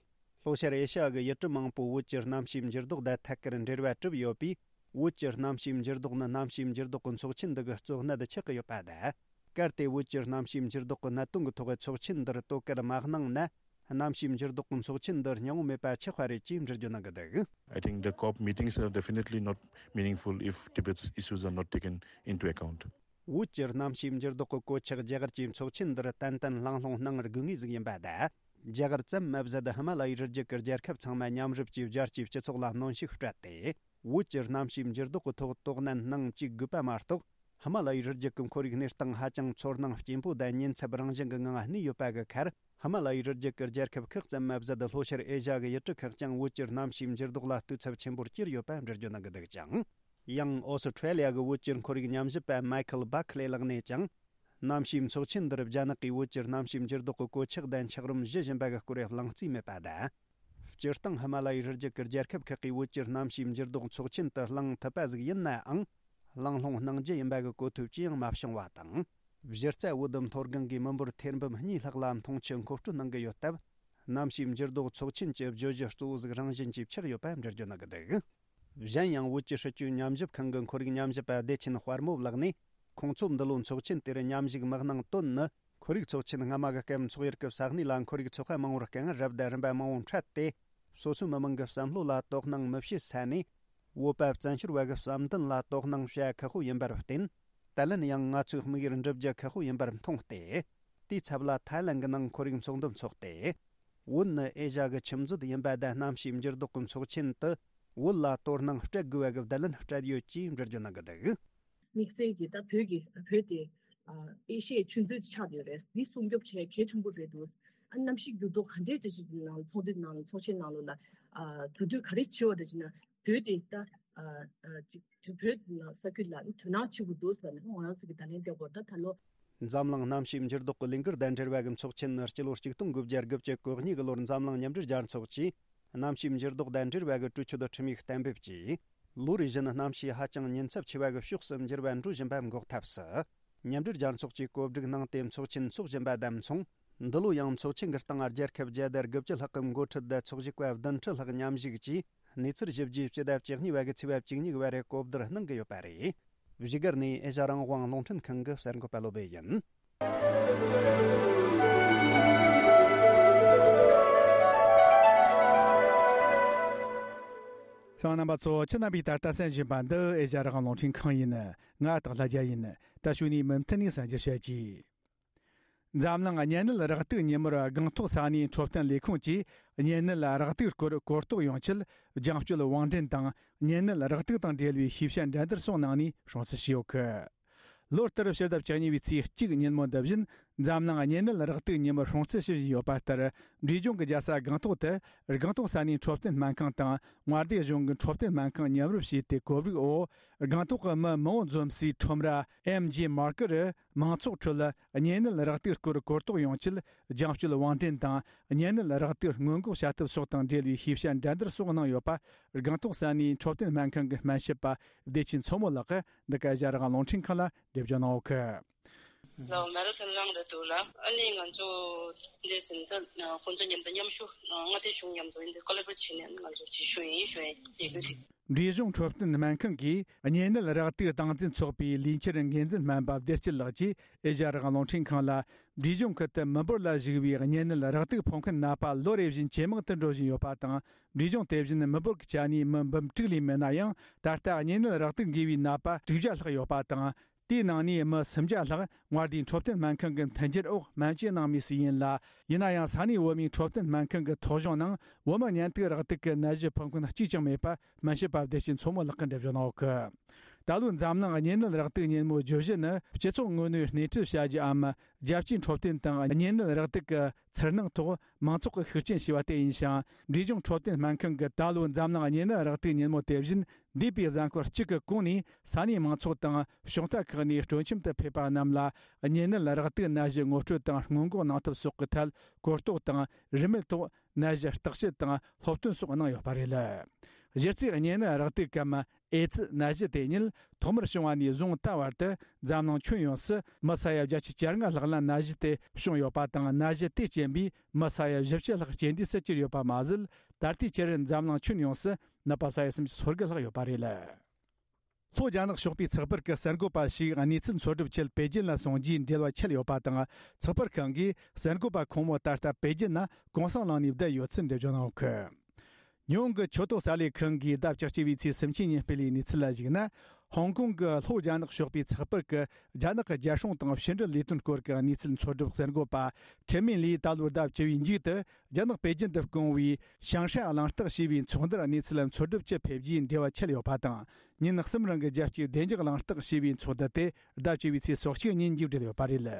ལྷོ་ཤར་ཨེ་ཤ་ཡ་གི་ཡུལ་གྲུ་མང་པོའི་བོད་ཀྱི་གནམ་གཤིས་འགྱུར་ལྡོག་དང་ཐད་ཀར་འབྲེལ་བ་གྲུབ་ཡོད་པས། བོད་ཀྱི་གནམ་གཤིས་འགྱུར་ལྡོག་ནི་གནམ་གཤིས་འགྱུར་ལྡོག་གི་ཚོགས་ཆེན་འདི་གི་གཙོ་གནད་ཆགས་ཀྱི་ཡོད་པ་དང་། གལ་ཏེ་བོད་ཀྱི་གནམ་གཤིས་འགྱུར་ལྡོག་གི་གནད་དོན་གྱི་ཐོག་ཚོགས་ཆེན་འདིར་དོ་ཁུར་མ་གནང་ན། གནམ་གཤིས་འགྱུར་ལྡོག་གི་ཚོགས་ཆེན་འདི་སྙིང་བོ་མེད་པ་ཆགས་པ་རེད་ཅེས་འགྲེལ་བརྗོད་གནང་གི་འདུག I think the COP meetings are definitely not meaningful if Tibet's issues are not taken into account. བོད་ཀྱི་གནམ་གཤིས་འགྱུར་ལྡོག་གི་གོད་ཆག་རྒྱ་གར་གྱི་ཚོགས་ཆེན་འདིར་ཏན་ཏན་གླེང་སློང་གནང་དགོས་ངེས་ཟིག་ཡིན་པ་དང་། རྒྱ་གར་ཙམ་མ་ཟད་ཧི་མ་ལ་ཡའི་རི་རྒྱུད་ཀྱི་རྒྱལ་ཁབ་ཚང་མ་མཉམ་རུབ་ཀྱིས་རྒྱལ་སྤྱིའི་སྤྱི་ཚོགས་ལ་གནོན་ཤུགས་སྤྲད་དེ། བོད་ཀྱི་གནམ་གཤིས་འགྱུར་ལྡོག་གི་ཐོག་དོ་སྣང་གནང་བཅུག་དགོས་པ་མ་གཏོགས། ཧི་མ་ལ་ཡའི་རི་རྒྱུད་ཀྱི་ཁོར་ཡུག་གནས་སྟངས་ཧ་ཅང་ཚོར་སྣང་སྐྱེན་པོ་དང་ཉེན་ཚབས་རང་བཞིན་གྱི་ངང་གནས་ཡོད་པ་གི་ཁར། ཧི་མ་ལ་ཡའི་རི་རྒྱུད་ཀྱི་རྒྱལ་ཁབ་ཁག་ཙམ་མ་ཟད། ལྷོ་ཤར་ཨེ་ཤ་ཡ་གི་ཡུལ་གྲུ་ཁག་ཀྱང་བོད་ཀྱི་གནམ་གཤིས་འགྱུར་ལྡོག་ལ་ལྟོས་ཚབས་ཆེན་པོར་གྱུར་ཡོད་པ་འགྲེལ་བརྗོད་གནང་གི་འདུག་ཅིང་། ཡང་ཨོ་སི་ཁྲེ་ལི་ཡ་གི་བོད་ཀྱི་ཁོར་ཡུག་ཉམས་ཞིབ་པ་མའི་ཁལ་བྷ་ཁ་ལེ་ལགས་ནས་ཀྱང་། གནམ་གཤིས་ཚོགས་ཆེན་འདིར་རྒྱ་ནག་གིས་བོད་ཀྱི་གནམ་གཤིས་འགྱུར་ལྡོག་གི་གོད་ཆག་དང་འཁྱགས་རོམ་བཞུ་བཞིན་པ་གི་སྐོར་གླེང་རྩིས་མེད་པ་དང་། སྤྱིར་བཏང་ཧི་མ་ལ་ཡའི་རི་རྒྱུད་ཀྱི་རྒྱལ་ཁབ་ཁག་གིས་བོད་ཀྱི་གནམ་གཤིས་འགྱུར་ལྡོག་ཚོགས་ཆེན་དུ་གླེང་ཐུབ་པ་ཟིག་ཡིན་ནའང་། གླེང་སློང་གནང་རྒྱུ་ཡིན་པ་གི་གོ་ཐོས་ཅི་ཡང་མ་བྱུང་བ་དང་། གཞི་རྩ་བོད་མཐོ་སྒང་གི་མི་འབོར་ཐེར་འབུམ་གཉིས་ལྷག་ལ་མཐོང་ཆེན་མཁོ་སྤྲོད་གནང་གི་ཡོད་སྟབས། གནམ་གཤིས་འགྱུར་ལྡོག་ཚོགས་ཆེན་གྱི་བརྗོད་གཞི་གཙོ་བོ་ཟིག་རང་བཞིན་གྱིས་ཆགས་ཡོད་པ་འགྲེལ་བརྗོད་གནང་གི་འདུག་གཞན་ཡང་བོད་ཀྱི་སྲིད་བྱུས་ཉམས་ཞིབ་ཁང་གི་ཁོར་ཡུག་ཉམས་ཞིབ་པ་བདེ་ཆེན་དཔལ་མོ་ལགས་ནས། ཁོང་ཚོ་འདི་ལོ་ཚོགས་ཆེན་དེར་མཉམ་ཞུགས་མི་གནང་དོན་ནི། ཁོར་ཡུག་ཚོགས་ཆེན་སྔ་མ་གི་སྐབས་འཚོགས་ཡུལ་གྱི་ས་གནས་ལ་ཁོར་ཡུག་ཚོགས་པ་མང་བོར་རྐང་རབ་དང་རིམ་པ་མང་བོ་འཕྲད་དེ། སོ་སོའི་མི་མང་གི་བསམ་བློ་ལ་དོ་སྣང་མི་བྱེད་ས་ནས། བོད་པ་བཙན་བྱོལ་བ་གི་བསམ་འདུན་ལ་དོ་སྣང་བྱ་ཁག་པོ་ཡིན་པར་བརྟེན། ད་ལན་ཡང་ང་ཚོའི་དམིགས་ཡུལ་འགྲུབ་རྒྱུ་ཁག་པོ་ཡིན་པར་མཐོང་སྟེ། དེའི་ཚབ་ལ་ཐའི་ལན་གྱི་ནང་ཁོར་ཡུག་ཚོགས་འདུ་འཚོགས་ཏེ། བོད་ནི་ཨེ་ཤ་ཡ་གི་ཁྱིམ་མཛོད་ཡིན་པ་དང་། གནམ་གཤིས་འགྱུར་ལྡོག་གི་ཚོགས་ཆེན་དུ་བོད་ལ་དོ་སྣང་སྤྲད་དགོས་པ་གི་བརྡ་ལན་སྤྲད་ཡོད་ཅེས་འགྲེལ་བརྗོད་གནང་གི་འདུག་དམིགས་བསལ་གྱིས་ད་བོད་ཀྱི་བོད་དེ་ཨ་ཨེ་ཤ་ཡའི་ཆུ་མཛོད་ཅིག་ཆགས་ཡོད་རེད། འདི་སྲུང་སྐྱོབ་བྱེད་གལ་ཆེན་པོ་རེད་འདུག་ཨ་གནམ་གཤིས་འགྱུར་ལྡོག་ག་འདྲའི་འདྲ་ཞིག་ནང་ཚོགས་འདུའི་ནང་ཚོགས་ཆེན་ནང་ལོགས་ལ་ཨ་གྲོས་བསྡུར་ག་རེ་བྱས་པ་རེད་ཅེ་ན། བོད་དེ་ད་ཨ་ཨ་ཅིག་བོད་ནང་ས་ཁུལ་ལ་དོ་སྣང་བྱེད་དགོས་འདུག་ཟེར་ནས་ང་རང་ཚོ་གི་བརྡ་ལན་སྤྲད་དགོས། ད་ད་ལོ། འཛམ་གླིང་གནམ་གཤིས་འགྱུར་ལྡོག་གི་ལས་འགུལ་དང་འབྲེལ་བ་གི་ཚོགས་ཆེན་ནི་སྤྱི་ལོ་ཆིག་སྟོང་དགུ་བརྒྱ་དགུ་བཅུ་གོ་གཉིས་གི་ལོར་འཛམ་གླིང་མཉམ་འབྲེལ་རྒྱལ་ཚོགས་ཀྱིས། གནམ་གཤིས་འགྱུར་ལྡོག་དང་འབྲེལ་བ་གི་གྲོས་ཆོད་ཁྲིམས་ཡིག་གཏན་འབེབས་ཀྱིས། ལོ་རེ་བཞིན་གནམ་གཤིས་ཧ་ཅང་ཉེན་ཚབས་ཆེ་བ་གི་ཕྱོགས་སུ་འགྱུར་བ་འགྲོ་བཞིན་པའི་འགོག་ཐབས་སུ། མཉམ་འབྲེལ་རྒྱལ་ཚོགས་ཀྱིས་གོ་སྒྲིག་གནང་སྟེ་ཚོགས་ཆེན་འཚོགས་བཞིན་པ་དང་མཚུངས། འདི་ལོ་ཡང་ཚོགས་ཆེན་གྱི་སྟེང་རྒྱལ་ཁབ་བརྒྱ་དང་དགུ་བཅུ་ལྷག་གི་འགོ་ཁྲིད་དང་ཚོགས་ཞུགས་པ་བདུན་ཁྲི་ལྷག་མཉམ་ཞུགས་ཀྱིས་གནས་ཚུལ་ཞིབ་རྒྱས་སྤྱི་ཟླ་བཅུ་གཉིས་པ་གི་ཚེས་པ་བཅུ་གཉིས་པ་རེ་གོ་བསྡུར་གནང་གི་ཡོད་པ་རེད། བཞུགས་སྒར་ནས་ཨེ་ཤ་ཡ་རང་དབང་རླུང་འཕྲིན་ཁང་གི་གསར་འགོད་པ་བློ་སྦེ་ཡིན། གསན་མཁན་རྣམ་པ་ཚོ། ཁྱེད་རྣམ་པས་ད་ལྟ་གསན་བཞིན་པ་འདི་ཨེ་ཤ་ཡ་རང་དབང་རླུང་འཕྲིན་ཁང་ཡིན། ང་སྟག་ལྷ་རྒྱལ་ཡིན། ད་གཞུག་ནས་མུ་མཐུད་ནས་གསན་རྒྱུ་བྱེད་ཀྱིས། འཛམ་གླིང་གཉན་ནད་རེག་དུག་ཉིན་མོར་སྒང་ཐོག་ས་གནས་འཕྲོད་བསྟེན་ལས་ཁུངས་ཀྱིས་གཉན་ནད་རེག་དུག་སྐོར་གོ་རྟོགས་ཡོང་ཆེད། རྒྱང་སྐྱོད་བང་འགྲན་དང་གཉན་ནད་རེག་དུག་དང་འབྲེལ་བའི་ཤེས་བྱ་འགྲན་བསྡུར་སོགས་གནང་ནས་སྲུང་བརྩི་ཞུས་ཡོད་སྐད། ལོ་ལྟར་ཕྱི་ཟླ་བཅུ་གཉིས་པའི་ཚེས་གཅིག་ཉིན་མོ་འདི་བཞིན། འཛམ་གླིང་གཉན་ནད་རེག་དུག་ཉིན་མོར་སྲུང་བརྩི་ཞུ་བཞིན་ཡོད་པ་ལྟར། འབྲས་ལྗོངས་ཀྱི་རྒྱལ་ས་སྒང་ཏོག་ཏུ་སྒང་ཏོག་ས་གནས་འཕྲོད་བསྟེན་སྨན་ཁང་དང་མངའ་སྡེ་གཞུང་གི་འཕྲོད་བསྟེན་སྨན་ཁང་མཉམ་རུབ་བྱས་ཏེ། གོ་སྒྲིག་འོག་སྒང་ཏོག་གི་མི་མང་བོ་འཛོམས་སའི་ཁྲོམ་ར་ཨེམ་ཇི་མར་ཀེཊ་རུ། མང་ཚོགས་ཁྲོད་གཉན་ནད་རེག་དུག་སྐོར་གོ་རྟོགས་ཡོང་ཆེད་རྒྱང་སྐྱོད་དབང་འདྲེན་དང་། གཉན་ནད་རེག་དུག་སྔོན་འགོག་བྱ་ཐབས་སོགས་དང་འབྲེལ་བའི་ཤེས་བྱ་འགྲན་བསྡུར་སོགས་གནང་ཡོད་པ། སྒང་ཏོག་ས་གནས་འཕྲོད་བསྟེན་སྨན་ཁང་གི་སྨན་ཞབས་པ་བདེ་ཆེན་མཚོ་མོ་ལགས་ཀྱིས་འདི་ག་ཨེ་ཤ་ཡ་རང་དབང་རླུང་འཕྲིན་ཁང་ལ་འགྲེལ་བརྗོད་གནང་ཡོད་ཀི། ལའོ་མེ་ར་ཐོན་རང་རེད་འདུག་ལ། ཨ་ནི་ང་ཚོ་འདི་ཟིན་ད་ཁོང་ཚོ་མཉམ་དུ་མཉམ་ཞུགས། མངའ་སྡེ་གཞུང་མཉམ་དུ་འདི་ཀོ་ལ་བོ་རེ་ཊི་བྱས་ནས་ང་ཚོ་ཅིག་ཞུ་ཡིན་ཞུ་ཡིན་ཡི་གེ་འདི། འབྲས་ལྗོངས་འཕྲོད་བསྟེན་སྨན་ཁང་གིས་གཉན་ནད་རེག་དུག་སྟངས་འཛིན་ཚོགས་པའི་ལས་འཆར་འགན་འཛིན་སྨན་པ་བདེ་སྐྱིད་ལགས་ཀྱིས་ཨེ་ཤ་ཡ་རང་དབང་རླུང་འཕྲིན་ཁང་ལ། འབྲས་ལྗོངས་ཁུལ་དུ་མི་འབོར་ལ་གཞིགས་པའི་གཉན་ནད་རེག་དུག་ཕོག་མཁན་ནད་པ་ལོ་རེ་བཞིན་ཇེ་མང་དུ་འགྲོ་བཞིན་ཡོད་པ་དང་། འབྲས་ལྗོངས་དེ་བཞིན་མི་འབོར་གྱི་ཆ་ནས་མི་འབུམ་དྲུག་ལས་མེད་ན་ཡང་། ད་ལྟ་གཉན་ནད་རེག་དུག་འགོས་པའི་ནད་པ་དྲུག་བརྒྱ་ལྷག་ཡོད་པ་དང་། དེའི་ནང་ནས་མི་སུམ་བརྒྱ་ལྷག་མངའ་སྡེའི་འཕྲོད་བསྟེན་སྨན་ཁང་གི་མཐུན་འགྱུར་འོག་སྨན་བཅོས་གནང་མུས་སུ་ཡིན་ལ། ཡིན་ན་ཡང་ས་གནས་བོད་མིའི་འཕྲོད་བསྟེན་སྨན་ཁང་གི་ཐོ་གཞུང་ནང་བོད་མི་གཉན་ཐུག་རེག་དུག་གི་ནད་གཞི་ཕོག་མཁན་གཅིག་ཀྱང་མེད་པ་སྨན་ཞབས་པ་བདེ་ཆེན་མཚོ་མོ་ལགས་ཀྱིས་འགྲེལ་བརྗོད་གནང་ཡོད་ཀི། ད་ལོའི་འཛམ་གླིང་གཉན་ནད་རེག་དུག་ཉིན་མོའི་བརྗོད་གཞི་ནི། སྤྱི་ཚོགས་ངོ་ནས་སྣེ་ཁྲིད་བྱ་རྒྱུའམ། རྒྱལ་སྤྱིའི་འཕྲོད་བསྟེན་དང་གཉན་ནད་རེག་དུག་གི་ཚུར་སྣང་ཐོག་མང་ཚོགས་ཀྱི་ཤུགས་རྐྱེན་བྱས་པ་དེ་ཡིན་ཞིང་། འབྲས་ལྗོངས་འཕྲོད་བསྟེན་སྨན་ཁང་གིས་ད་ལོའི་འཛམ་གླིང་གཉན་ནད་རེག་དུག་ཉིན་མོ་དེ་བཞིན། འདས་པའི་གཟའ་འཁོར་གཅིག་གི་གོང་ནས་ས་གནས་མང་ཚོགས་དང་གཞུང་རྟ་ཁག་ནས་སྤྲོ་འཆམ་དུ་ཕེབས་པ་རྣམས་ལ་གཉན་ནད་རེག་དུག་ནད་གཞི་ངོ་སྤྲོད་དང་སྔོན་འགོག་གནང་ཐབས་སོགས་ཀྱི་ཐད་གོ་རྟོགས་དང་། རིན་མེད་ཐོག་ནད་གཞི་བརྟག་དཔྱད་དང་སློབ་སྟོན་སོགས་གནང་ཡོད་པ་རེད། གཞི་རྩའི་གཉན་ནད་རེག་དུག་གམ་ཨེ་ཙི་ནད་གཞི་དེ་ཉིད་ཐོག་མར་བྱུང་བ་ནས་བཟུང་ད་བར་དུ་འཛམ་གླིང་ཁྱོན་ཡོངས་སུ་མི་ས་ཡ་བརྒྱད་ཅུ་གྱ་ལྔ་ལྷག་ལ་ནད་གཞི་དེ་བྱུང་ཡོད་པ་དང་། ནད་གཞི་དེའི་རྐྱེན་པས་མི་ས་ཡ་བཞི་བཅུ་ལྷག་རྐྱེན་འདས་སུ་གྱུར་ཡོད་པ་མ་ཟད། ད་ལྟའི་ཆར་འཛམ་གླིང་ཁྱོན་ཡོངས་སུ་ནད་པ་ས་ཡ་སུམ་ཅུ་སོ་དགུ་ལྷག་ཡོད་པ་རེད། ལྷོ་རྒྱ་ནག་ཕྱོགས་པའི་ཚགས་པར་གྱི་གསར་འགོད་པ་ཞིག་གནས་ཚུལ་འཚོལ་སྒྲུབ་ཆེད་པེ་ཅིན་ལ་སོང་རྗེས་འབྲེལ་བ་ཆད་ཡོད་པ་དང་། ཚགས་པར་ཁང་གིས་གསར་འགོད་པ་ཁོང་མོ་ད་ལྟ་པེ་ཅིན་ན་གུང་སེང་གནང་ནས་བསྡད་ཡོད་ཚུལ་འགྲེལ་བརྗོད་གནང་ཡོད་ཀི། ཉི་ཧོང་གི་ཆོས་ཐོག་གསར་ལས་ཁང་གིས་ཟླ་བཅུ་གཅིག་པའི་ཚེས་སུམ་ཅུ་ཉིན་སྤེལ་བའི་གནས་ཚུལ་ལ་གཞིགས་ན། ཧོང་ཀོང་གི་ལྷོ་རྒྱ་ནག་ཕྱོགས་པའི་ཚགས་པར་གྱི་རྒྱ་ནག་གི་རྒྱལ་སྲུང་དང་ཕྱི་འབྲེལ་ལས་དོན་སྐོར་གྱི་གནས་ཚུལ་འཚོལ་སྒྲུབ་གསར་འགོད་པ་ཁྲེན་མིན་ལིས་ད་ལོའི་ཟླ་བཅུ་བའི་མཇུག་ཏུ་རྒྱ་ནག་པེ་ཅིན་དུ་བསྐོང་བའི་ཞང་ཧྲན་གླེང་སྟེགས་ཞེས་པའི་ཚོགས་འདུར་གནས་ཚུལ་འཚོལ་སྒྲུབ་ཆེད་ཕེབས་རྗེས་འབྲེལ་བ་ཆད་ཡོད་པ་དང་། ཉིན་གསུམ་རིང་གི་རྒྱལ་སྤྱིའི་བདེ་འཇགས་གླེང་སྟེགས་ཞེས་པའི་ཚོགས་འདུ་དེ་ཟླ་བཅུ་བའི་ཚེས་སོ་གཅིག་ཉིན་མཇུག་བསྒྲིལ་ཡོད་པ་རེད།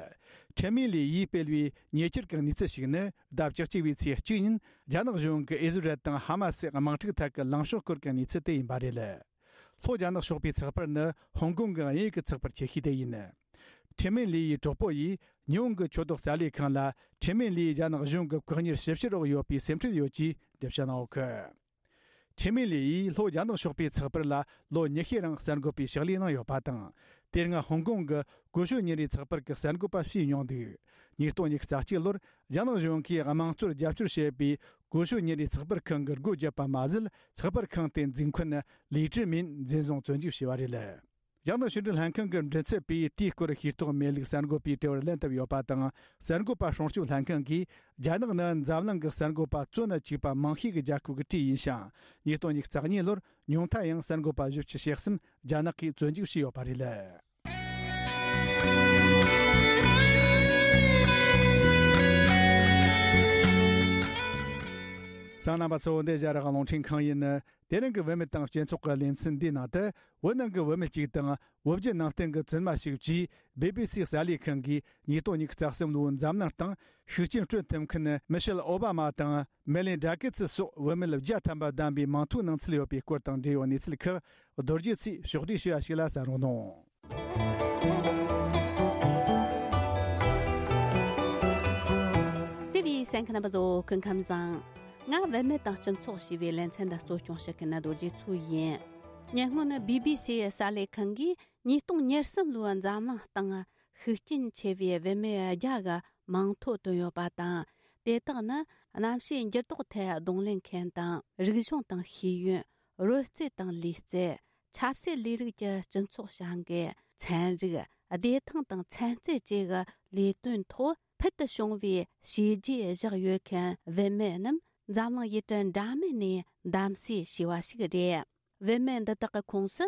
ཁྲེན་མིན་ལི་ཡིས་སྤེལ་བའི་ཉེ་ཆར་གྱི་གནས་ཚུལ་ཞིག་ནི། ཟླ་བཅུ་གཅིག་པའི་ཚེས་གཅིག་ཉིན་རྒྱ་ནག་གཞུང་གིས་ཨི་ཟི་རལ་དང་ཧ་མ་སི་དམག་འཁྲུག་ཐད་ཀྱི་ལངས་ཕྱོགས་སྐོར་གྱི་གནས་ཚུལ་དེ་ཡིན་པ་རེད། ལྷོ་རྒྱ་ནག་ཕྱོགས་པའི་ཚགས་པར་ནི་ཧོང་ཀོང་གི་དབྱིན་ཡིག་གི་ཚགས་པར་ཆེ་ཤོས་དེ་ཡིན། ཁྲེན་མིན་ལི་ཡི་གྲོགས་པོ་ཡིས་ཉི་ཧོང་གི་ཆོས་ཐོག་གསར་ལས་ཁང་ལ། ཁྲེན་མིན་ལི་རྒྱ་ནག་གཞུང་གི་བཀག་ཉར་ཞིབ་བཤེར་འོག་ཡོད་པའི་སེམས་ཁྲལ་ཡོད་ཅེས་འགྲེལ་བཤད་གནང་ཡོད་ཀི། ཁྲེན་མིན་ལི་ཡིས་ལྷོ་རྒྱ་ནག་ཕྱོགས་པའི་ཚགས་པར་ལ་ལོ་ཉི་ཤུའི་རིང་གསར་འགོད་པའི་ཕྱག་ལས་གནང་ཡོད་པ་དང་། དེ་སྔ་ཧོང་ཀོང་གི་ཀུ་ཤུ་ཉིན་རེའི་ཚགས་པར་གྱི་གསར་འགོད་པ་བྱས་མྱོང་འདུག། ཉིས་སྟོང་ཉི་ཤུ་རྩ་གཅིག་ལོར་རྒྱ་ནག་གཞུང་གིས་དམངས་གཙོར་རྒྱབ་སྐྱོར་བྱེད་པའི་ཀུ་ཤུ་ཉིན་རེའི་ཚགས་པར་ཁང་གི་སྒོ་བརྒྱབ་པ་མ་ཟད། ཚགས་པར་ཁང་དེའི་འཛིན་ཁོན་ལི་ཀྲི་མིན་འཛིན་བཟུང་བཙོན་འཇུག་བྱས་པ་རེད། རྒྱ་ནག་ཕྱི་འབྲེལ་ལྷན་ཁང་གི་མགྲིན་ཚབ་པས་དེའི་སྐོར་ཤེས་རྟོགས་མེད་ལུགས་གསར་འགོད་པའི་དྲི་བར་ལན་བཏབ་ཡོད་པ་དང་། གསར་འགོད་པ་སྲུང་སྐྱོབ་ལྷན་ཁང་གིས། རྒྱ་ནག་ནི་འཛམ་གླིང་གི་གསར་འགོད་པ་བཙོན་ན་བཅུག་པ་མང་ཤོས་ཀྱི་རྒྱལ་ཁབ་ཀྱི་གྲས་ཡིན་ཞིང་། ཉིས་སྟོང་ཉི་ཤུ་རྩ་གཉིས་ལོར་ཉུང་མཐའ་ཡང་གསར་འགོད་པ་བཞི་བཅུ་ཞེ་གསུམ་རྒྱ་ནག་གིས་བཙོན་འཇུག་བྱས་ཡོད་པ་རེད། གསན་མཁན་རྣམ་པ་ཚོ། འདི་ཨེ་ཤ་ཡ་རང་དབང་རླུང་འཕྲིན་ཁང་ཡིན། དེ་རིང་གི་བུད་མེད་དང་སྤྱི་ཚོགས་ཀྱི་ལེ་ཚན་འདིའི་ནང་དུ། བོད་ནང་གི་བུད་མེད་ཅིག་དང་བོད་བརྒྱུད་ནང་བསྟན་གྱི་བཙུན་མ་ཞིག་བཅས་བི་བི་སི་གསར་ལས་ཁང་གིས་ཉིས་སྟོང་ཉི་ཤུ་རྩ་གསུམ་ལོའི་འཛམ་གླིང་སྟེང་ཤུགས་རྐྱེན་སྤྲོད་ཐུབ་མཁན་མི་ཤེལ་ཨོ་བྷ་མ་དང་མེ་ལིན་ཌ་གེ་ཚི་སོགས་བུད་མེད་བརྒྱ་ཐམ་པ་བདམས་པའི་མིང་ཐོའི་གནང་ཚུལ་ཡོད་པའི་སྐོར་དང་འབྲེལ་ཡོད་གནས་ཚུལ་ཁག་རྡོ་རྗེ་ཚེས་ཕྱོགས་བསྒྲིགས་བྱས་པ་ཞིག་ལ་གསན་རོགས་གནང་། བརྩེ་བའི་གསན་མཁན་རྣམ་པ་ཚོ། སྐུ་ཁམས་བཟང་། ང་བུད་མེད་དང་སྤྱི་ཚོགས་ཞེས་པའི་ལེ་ཚན་འདི་གཙོ་སྐྱོང་བྱེད་མཁན་རྡོ་རྗེ་མཚོ་ཡིན། ཉེ་སྔོན་བི་བི་སིའི་གསར་ལས་ཁང་གིས་ཉིས་སྟོང་ཉེར་གསུམ་ལོའི་འཛམ་གླིང་སྟེང་ཤུགས་རྐྱེན་ཆེ་བའི་བུད་མེད་བརྒྱ་གི་མིང་ཐོ་བཏོན་ཡོད་པ་དང་། དེ་དག་ནི་གནམ་གཤིས་འགྱུར་ལྡོག་ཐད་གདོང་ལེན་མཁན་དང་། རིག་གཞུང་དང་ཤེས་ཡོན། རོལ་རྩེད་དང་ལུས་རྩལ། ཆབ་སྲིད་ལས་རིགས་ཀྱི་སྤྱི་ཚོགས་བྱ་འགུལ། ཚན་རིག། བདེ་ཐང་དང་ཚན་རྩལ་བཅས་ཀྱི་ལས་དོན་ཐོག་ཕུལ་དུ་བྱུང་བའི་བྱས་རྗེས་བཞག་ཡོད་མཁན་བུད་མེད་རྣམས་འཛམ་གླིང་ཡུལ་གྲུ་འདྲ་མིན་ནས་གདམ་གསེས་བྱས་པ་ཞིག་རེད། བུད་མེད་འདི་དག་གི་ཁོངས་སུ་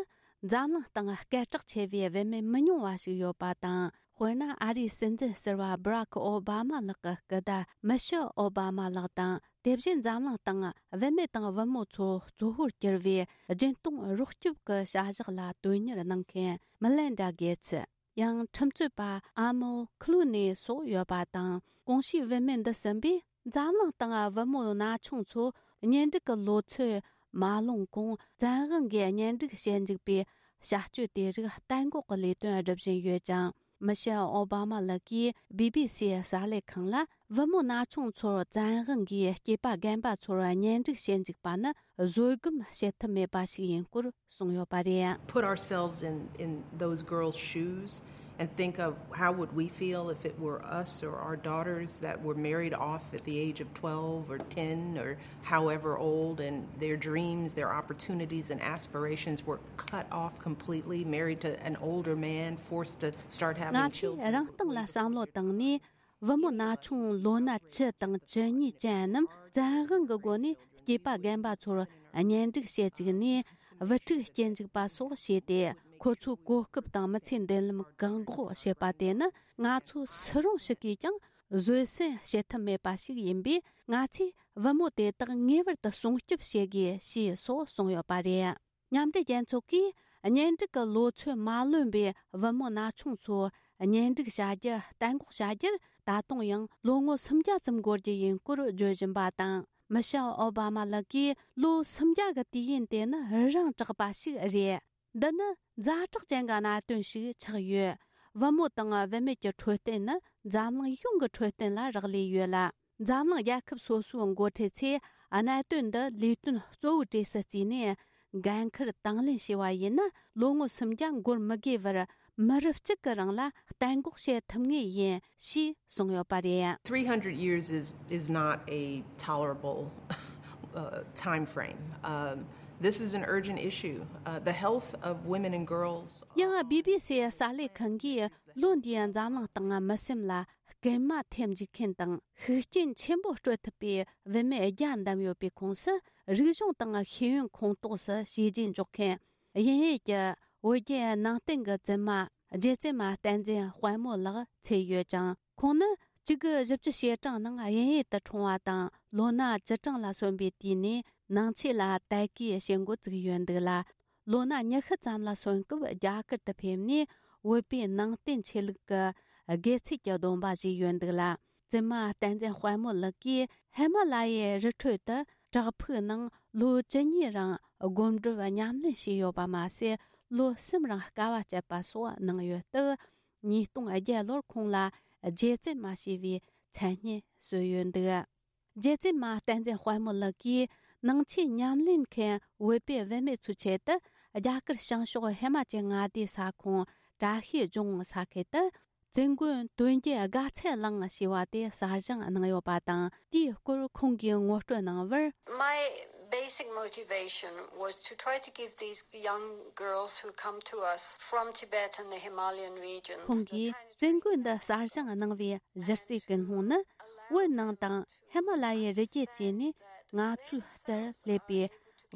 འཛམ་གླིང་སྟེང་སྐད་གྲགས་ཆེ་བའི་བུད་མེད་མི་ཉུང་བ་ཞིག་ཡོད་པ་དང་། དཔེར་ན། ཨ་རིའི་སྲིད་འཛིན་ཟུར་པ་སྦ་རག་ཨོ་བྷ་མ་ལགས་ཀྱི་སྐུ་ཟླ་མི་ཤེལ་ཨོ་བྷ་མ་ལགས་དང་། དེ་བཞིན་འཛམ་གླིང་སྟེང་བུད་མེད་དང་བུ་མོ་ཚོ་གཙོ་བོར་གྱུར་བའི་སྦྱིན་གཏོང་རོགས་སྐྱོབ་ཀྱི་བྱ་གཞག་ལ་དོན་གཉེར་གནང་མཁན་མི་ལན་ཌ་གེ་ཚི། ཡང་ཁྲིམས་རྩོད་པ་ཨ་མོ་ཁི་ལུ་ནེ་སོགས་ཡོད་པ་དང་། གོང་ཞུས་བུད་མེད་འདི་གསུམ་པས་འཛམ་གླིང་སྟེང་བུ་མོ་ན་ཆུང་ཚོ་གཉེན་སྒྲིག་གི་ལོ་ཚོད་མ་ལོན་གོང་བཙན་དབང་གིས་གཉེན་སྒྲིག་བྱེད་འཇུག་པའི་བྱ་སྤྱོད་དེ་རིགས་གཏན་འགོག་གི་ལས་དོན་སྒྲུབ་བཞིན་ཡོད་ཅིང་། མི་ཤེལ་ཨོ་བྷ་མ་ལགས་ཀྱིས་བི་བི་སིའི་གསར་ལས་ཁང་ལ། བུ་མོ་ན་ཆུང་ཚོར་བཙན་དབང་གིས་སྐྱེས་པ་རྒན་པ་ཚོར་གཉེན་སྒྲིག་བྱེད་འཇུག་པ་ནི་བཟོད་སྒོམ་བྱེད་ཐབས་མེད་པ་ཞིག་ཡིན་སྐོར་གསུངས་ཡོད་པ་རེད། Put ourselves in, in those girls' shoes and think of how would we feel if it were us or our daughters that were married off at the age of twelve or ten or however old, and their dreams, their opportunities and aspirations were cut off completely, married to an older man, forced to start having children. ང་ཚོས་རང་སྟེང་ལ་བསམ་བློ་བཏང་ནས། བུ་མོ་ན་ཆུང་ལོ་ན་བཅུ་དང་བཅུ་གཉིས་ཅན་རྣམས་བཙན་དབང་གི་སྒོ་ནས་སྐྱེས་པ་རྒན་པ་ཚོར་གཉེན་སྒྲིག་བྱེད་བཅུག་ནས། བུ་ཕྲུག་སྐྱེ་འཇུག་པ་སོགས་བྱས་ཏེ། ཁོ་ཚོའི་གོ་སྐབས་དང་མི་ཚེའི་མདུན་ལམ་བཀག་འགོག་བྱེད་པ་དེ་ནི། ང་ཚོ་སུ་རུང་ཞིག་གིས་ཀྱང་བཟོད་བསྲན་བྱེད་ཐབས་མེད་པ་ཞིག་ཡིན་པས། ང་ཚོས་བུ་མོ་དེ་དག་ངེས་པར་དུ་སྲུང་སྐྱོབ་བྱེད་དགོས་ཞེས་སོགས་གསུངས་ཡོད་པ་རེད། མཉམ་འབྲེལ་རྒྱལ་ཚོགས་ཀྱིས་གཉེན་སྒྲིག་གི་ལོ་ཚོད་མ་ལོན་པའི་བུ་མོ་ན་ཆུང་ཚོ་གཉེན་སྒྲིག་བྱ་རྒྱུ་གཏན་འགོག་བྱ་རྒྱུར། ད་དུང་ཡང་ལོ་ངོ་སུམ་བརྒྱ་ཙམ་འགོར་རྒྱུ་ཡིན་སྐོར་བརྗོད་བཞིན་པ་དང་། མི་ཤེལ་ཨོ་བྷ་མ་ལགས་ཀྱིས་ལོ་སུམ་བརྒྱ་གི་དུས་ཡུན་དེ་ནི་རིང་དྲགས་པ་ཞིག་རེད། འདི་ནི་ཛ་དྲག་ཅན་གྱི་གནད་དོན་ཞིག་ཆགས་ཡོད། བུ་མོ་དང་བུད་མེད་ཀྱི་འཕྲོད་བསྟེན་ནི་འཛམ་གླིང་ཡོངས་ཀྱི་འཕྲོད་བསྟེན་ལ་རག་ལས་ཡོད་ལ། འཛམ་གླིང་རྒྱལ་ཁབ་སོ་སོའི་འགོ་ཁྲིད་ཚོས་གནད་དོན་འདི་ལས་དོན་གཙོ་བོའི་གྲས་སུ་བརྩིས་ནས། འགན་འཁུར་དང་ལེན་བྱས་པ་ཡིན་ན། ལོ་ངོ་སུམ་བརྒྱ་འགོར་མི་དགོས་པར། མི་རབས་གཅིག་གི་རིང་ལ་གཏན་འགོག་བྱེད་ཐུབ་ངེས་ཡིན་ཞེས་གསུངས་ཡོད་པ་རེད། Three hundred years is, is not a tolerable uh, time frame. Um, this is an urgent issue. Uh, the health of women and girls. ཡང་བི་བི་སི་གསར་ལས་ཁང་གིས་ལོ་འདིའི་འཛམ་གླིང་སྟེང་མི་སེམས་ལ་སྐུལ་མ་ཐེབས་འཇུག་མཁན་དང་ཤུགས་རྐྱེན་ཆེན་པོ་སྤྲོད་ཐུབ་པའི་བུད་མེད་བརྒྱ་བདམས་ཡོད་པའི་ཁོངས་སུ། རིག་གཞུང་དང་ཤེས་ཡོན་ཁོངས་གཏོགས་སུ་བྱས་རྗེས་འཇོག་མཁན། དབྱིན་ཡུལ་གྱི་བོད་བརྒྱུད་ནང་བསྟན་གྱི་བཙུན་མ་རྗེ་བཙུན་མ་བསྟན་འཛིན་དཔལ་མོ་ལགས་ཚུད་ཡོད་ཅིང་། ཁོང་ནི་བཅུ་དགུ་བཞི་བཅུ་ཞེ་གྲངས་ནང་དབྱིན་ཡུལ་དུ་འཁྲུངས་པ་དང་། ལོ་ན་བཅུ་གྲངས་ལ་སོན་པའི་དུས་ནས་ནང་ཆོས་ལ་དད་གུས་བྱེད་འགོ་བཙུགས་ཡོད་འདུག་ལ། ལོ་ན་ཉི་ཤུ་ཙམ་ལ་སོན་སྐབས་རྒྱ་གར་དུ་ཕེབས་ནས། བོད་པའི་ནང་བསྟན་ཆོས་ལུགས་ཀྱི་དགེ་ཚུལ་གྱི་སྡོམ་པ་བཞེས་ཡོད་འདུག་ལ། བཙུན་མ་བསྟན་འཛིན་དཔལ་མོ་ལགས་ཀྱིས་ཧི་མ་ལ་ཡའི་རི་ཁྲོད་དུ་བྲག་ཕུག་ནང་ལོ་བཅུ་གཉིས་རིང་སྒོམ་སྒྲུབ་ཉམས་ལེན་བྱས་ཡོད་པ་མ་ཟད། ལོ་གསུམ་རིང་དཀའ་བ་སྤྱད་པ་སོགས་གནང་ཡོད་སྟབས། ཉིས་སྟོང་བརྒྱད་ལོར་ཁོང་ལ་རྗེ་བཙུན་མ་ཞེས་པའི་མཚན་སྙན་གསོལ་ཡོད་འདུག། རྗེ་བཙུན་མ་བསྟན་འཛིན་དཔལ་མོ་ལགས་ཀྱིས་ནང་ཆོས་ཉམས་ལེན་མཁན་བོད་པའི་བུད་མེད་ཚོའི་ཆེད་དུ། རྒྱ་གར་བྱང་ཕྱོགས་ཧི་མ་ཅལ་མངའ་སྡེའི་ས་ཁོངས་བཀྲ་ཤིས་ལྗོངས་ས་ཁུལ་དུ། བཙུན་དགོན་དོན་བརྒྱུད་དགའ་ཚལ་གླིང་ཞེས་པ་དེ་གསར་བཞེངས་གནང་ཡོད་པ་དང་། དེའི་སྐོར་ཁོང་གིས་ངོ་སྤྲོད་གནང་བར། My basic motivation was to try to give these young girls who come to us from Tibet and the Himalayan regions. ཁོང་གིས་བཙུན་དགོན་འདི་གསར་བཞེངས་གནང་བའི་གཞི་རྩའི་ཀུན་སློང་ནི། བོད་ནང་དང་ཧི་མ་ལ་ཡའི་རི་རྒྱུད་བཅས་ནས་ང་ཚོའི་རྩར་སླེབས་པའི་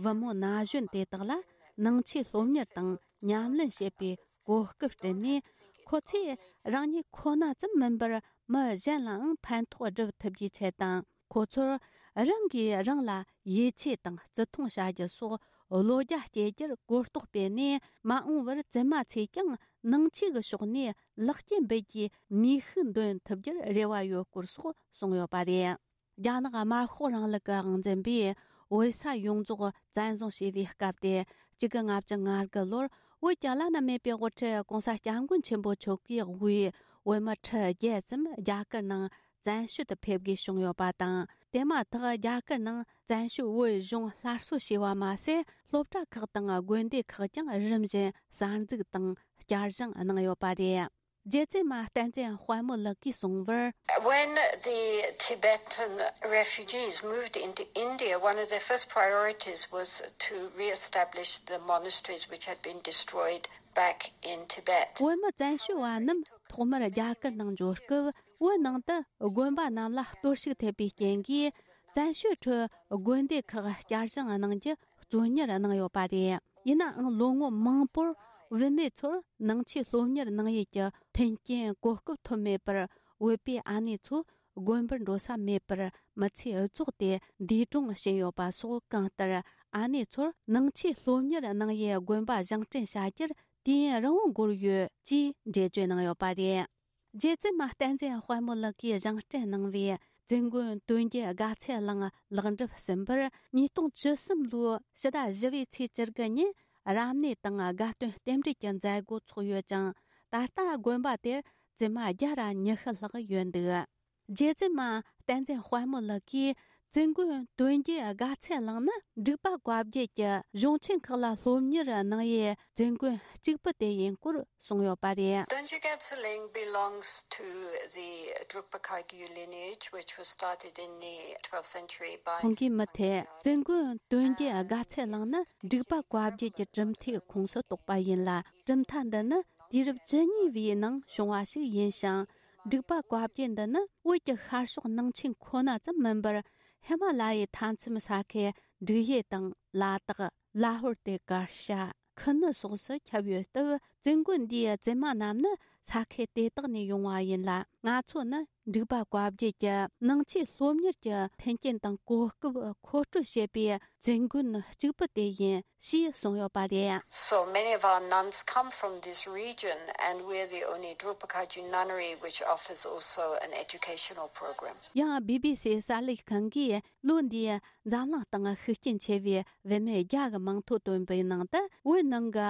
བུ་མོ་ན་གཞོན་དེ་དག་ལ་ནང་ཆོས་སློབ་གཉེར་དང་ཉམས་ལེན་བྱེད་པའི་གོ་སྐབས་བསྐྲུན་ནས། ཁོ་ཚོས་རང་ཉིད་ཁོ་ན་ཙམ་མིན་པར་མི་གཞན་ལའང་ཕན་ཐོགས་སྒྲུབ་ཐུབ་རྒྱུའི་ཆེད་དང་། ཁོ་ཚོར་རང་གིས་རང་ལ་ཡིད་ཆེས་དང་བརྩི་མཐོང་བྱ་རྒྱུ་སོགས་བློ་རྒྱ་སྐྱེད་རྒྱུར་གོ་རྟོགས་སྤེལ་ནས། མ་འོངས་པར་བཙུན་མ་ཚོས་ཀྱང་ནང་ཆོས་ཀྱི་ཕྱོགས་ནས་ལེགས་སྐྱེས་འབུལ་རྒྱུའི་ནུས་ཤུགས་འདོན་ཐུབ་རྒྱུར་རེ་བ་ཡོད་སྐོར་སོགས་གསུངས་ཡོད་པ་རེད། རྒྱ་ནག་དམར་ཤོག་རིང་ལུགས་ཀྱི་དབང་འཛིན་པས་བོད་ས་ཡོངས་རྫོགས་བཙན་བཟུང་བྱས་པའི་སྐབས་དེ། གཅིག་དགུ་ལྔ་བཅུ་ང་དགུ་ལོར་བོད་ཀྱི་བླ་ན་མེད་པའི་དབུ་ཁྲིད་༸གོང་ས་༸སྐྱབས་མགོན་ཆེན་པོ་མཆོག་གིས་དབུས་བོད་མི་ཁྲི་བརྒྱད་ཙམ་རྒྱ་གར་ནང་བཙན་བྱོལ་དུ་ཕེབས་དགོས་བྱུང་ཡོད་པ་དང་། དེ་མ་ཐག་རྒྱ་གར་ནང་བཙན་བྱོལ་བོད་གཞུང་སླར་གསོ་བྱས་པ་མ་ཟད། སློབ་གྲྭ་ཁག་དང་དགོན་སྡེ་ཁག་ཀྱང་རིམ་བཞིན་གསར་འཛུགས་དང་བསྐྱར་བཞེངས་གནང་ཡོད་པ་རེད། རྗེ་བཙུན་མ་བསྟན་འཛིན་དཔལ་མོ་ལགས་ཀྱིས་གསུངས་པར། When the Tibetan refugees moved into India, one of their first priorities was to re-establish the monasteries which had been destroyed back in Tibet. བོད་མི་བཙན་བྱོལ་བ་རྣམས་ཐོག་མར་རྒྱ་གར་ནང་འབྱོར་སྐབས། བོད་ནང་དུ་དགོན་པ་རྣམས་ལ་གཏོར་བཤིག་ཐེབས་པའི་རྐྱེན་གྱིས། བཙན་བྱོལ་ཁྲོད་དགོན་སྡེ་ཁག་བསྐྱར་བཞེངས་གནང་རྒྱུ་གཙོ་གཉེར་གནང་ཡོད་པ་རེད། ཡིན་ནའང་ལོ་ངོ་མང་པོར་བུད་མེད་ཚོར་ནང་ཆོས་སློབ་གཉེར་གནང་ཡུལ་གྱི་མཐུན་རྐྱེན་གོ་སྐབས་ཐོབ་མེད་པར། བོད་པའི་ཨ་ནེ་ཚོ་དགོན་པར་འགྲོ་ས་མེད་པར་མི་ཚེ་རྫོགས་ཏེ་འདས་གྲོངས་ཕྱིན་ཡོད་པ་སོགས། གང་ལྟར་ཨ་ནེ་ཚོར་ནང་ཆོས་སློབ་གཉེར་གནང་ཡུལ་དགོན་པ་བཞེངས་སྐྲུན་བྱ་རྒྱུར་ དུས་ཡུན་རིང་བོ་འགོར་ཡོད་ཅེས་འགྲེལ་བརྗོད་གནང་ཡོད་པ་རེད། རྒྱལ་བཙུན་མ་བསྟན་འཛིན་དཔལ་མོ་ལགས་ཀྱིས་བཞེངས་སྐྲུན་གནང་བའི་བཙུན་དགོན་དོན་བརྒྱུད་དགའ་ཚལ་གླིང་ལེགས་འགྲུབ་ཟིན་པར། ཉིས་སྟོང་བཅུ་གསུམ་ལོའི་ཕྱི་ཟླ་བཞི་པའི་ཚེས་བཅུ་དགུ་ཉིན་རབ་གནས་དང་དགའ་སྟོན་རྟེན་འབྲེལ་གྱི་མཛད་སྒོ་ཚོགས་ཡོད་ཅིང་། ད་ལྟ་དགོན་པ་དེར་བཙུན་མ་བརྒྱ་ར་ཉི་ཤུ་ལྷག་ཡོད་འདུག་རྒྱལ་བཙུན་མ་བསྟན་འཛིན་དཔལ་མོ་ལགས་ཀྱིས་བཙུན་དགོན་དོན་བརྒྱུད་དགའ་ཚལ་གླིང་ནི་འབྲུག་པ་བཀའ་བརྒྱུད་ཀྱི་གཞུང་ཆེན་ཁག་ལ་སློབ་གཉེར་གནང་ཡུལ་བཙུན་དགོན་གཅིག་པུ་དེ་ཡིན་སྐོར་གསུངས་ཡོད་པ་རེད། Donjugetse Ling belongs to the Drukpa Kagyu lineage, which was started in the twelfth century by ཁོང་གིས་མུ་མཐུད་བཙུན་དགོན་དོན་བརྒྱུད་དགའ་ཚལ་གླིང་ནི་འབྲུག་པ་བཀའ་བརྒྱུད་ཀྱི་གྲུབ་མཐའི་ཁོངས་སུ་གཏོགས་པ་ཡིན་ལ། གྲུབ་མཐའ་འདི་ནི་དུས་རབས་བཅུ་གཉིས་པའི་ནང་བྱུང་བ་ཞིག་ཡིན་ཞིང་། འབྲུག་པ་བཀའ་བརྒྱུད་འདི་ནི་བོད་ཀྱི་ཤར་ཕྱོགས་ནང་ཆེན་ཁོ་ན་ཙམ་མིན་པར། ཧི་མ་ལ་ཡའི་མཐའ་མཚམས་ས་ཁུལ་འབྲུག་ཡུལ་དང་ལ་དྭགས། ལ་ཧོར་དེ་གར་ཤ། ཁུ་ནུ་སོགས་སུ་ཁྱབ་ཡོད་སྟབས། བཙུན་དགོན་འདིའི་བཙུན་མ་རྣམས་ནི་ས་ཁུལ་དེ་དག་ནས་ཡོང་བ་ཡིན་ལ། ང་ཚོ་ནི་འབྲུག་པ་བཀའ་བརྒྱུད་ཀྱི་ནང་ཆོས་སློབ་གཉེར་གྱི་མཐུན་རྐྱེན་དང་གོ་སྐབས་མཁོ་སྤྲོད་བྱེད་པའི་བཙུན་དགོན་གཅིག་པུ་དེ་ཡིན་ཞེས་གསུངས་ཡོད་པ་རེད། So many of our nuns come from this region, and we're the only Drukpa Kagyu nunnery which offers also an educational program. ཡང་བི་བི་སི་གསར་ལས་ཁང་གིས་ལོ་འདིའི་འཛམ་གླིང་སྟེང་ཤུགས་རྐྱེན་ཆེ་བའི་བུད་མེད་བརྒྱ་གི་མིང་ཐོ་བཏོན་པའི་ནང་དུ། བོད་ནང་གི་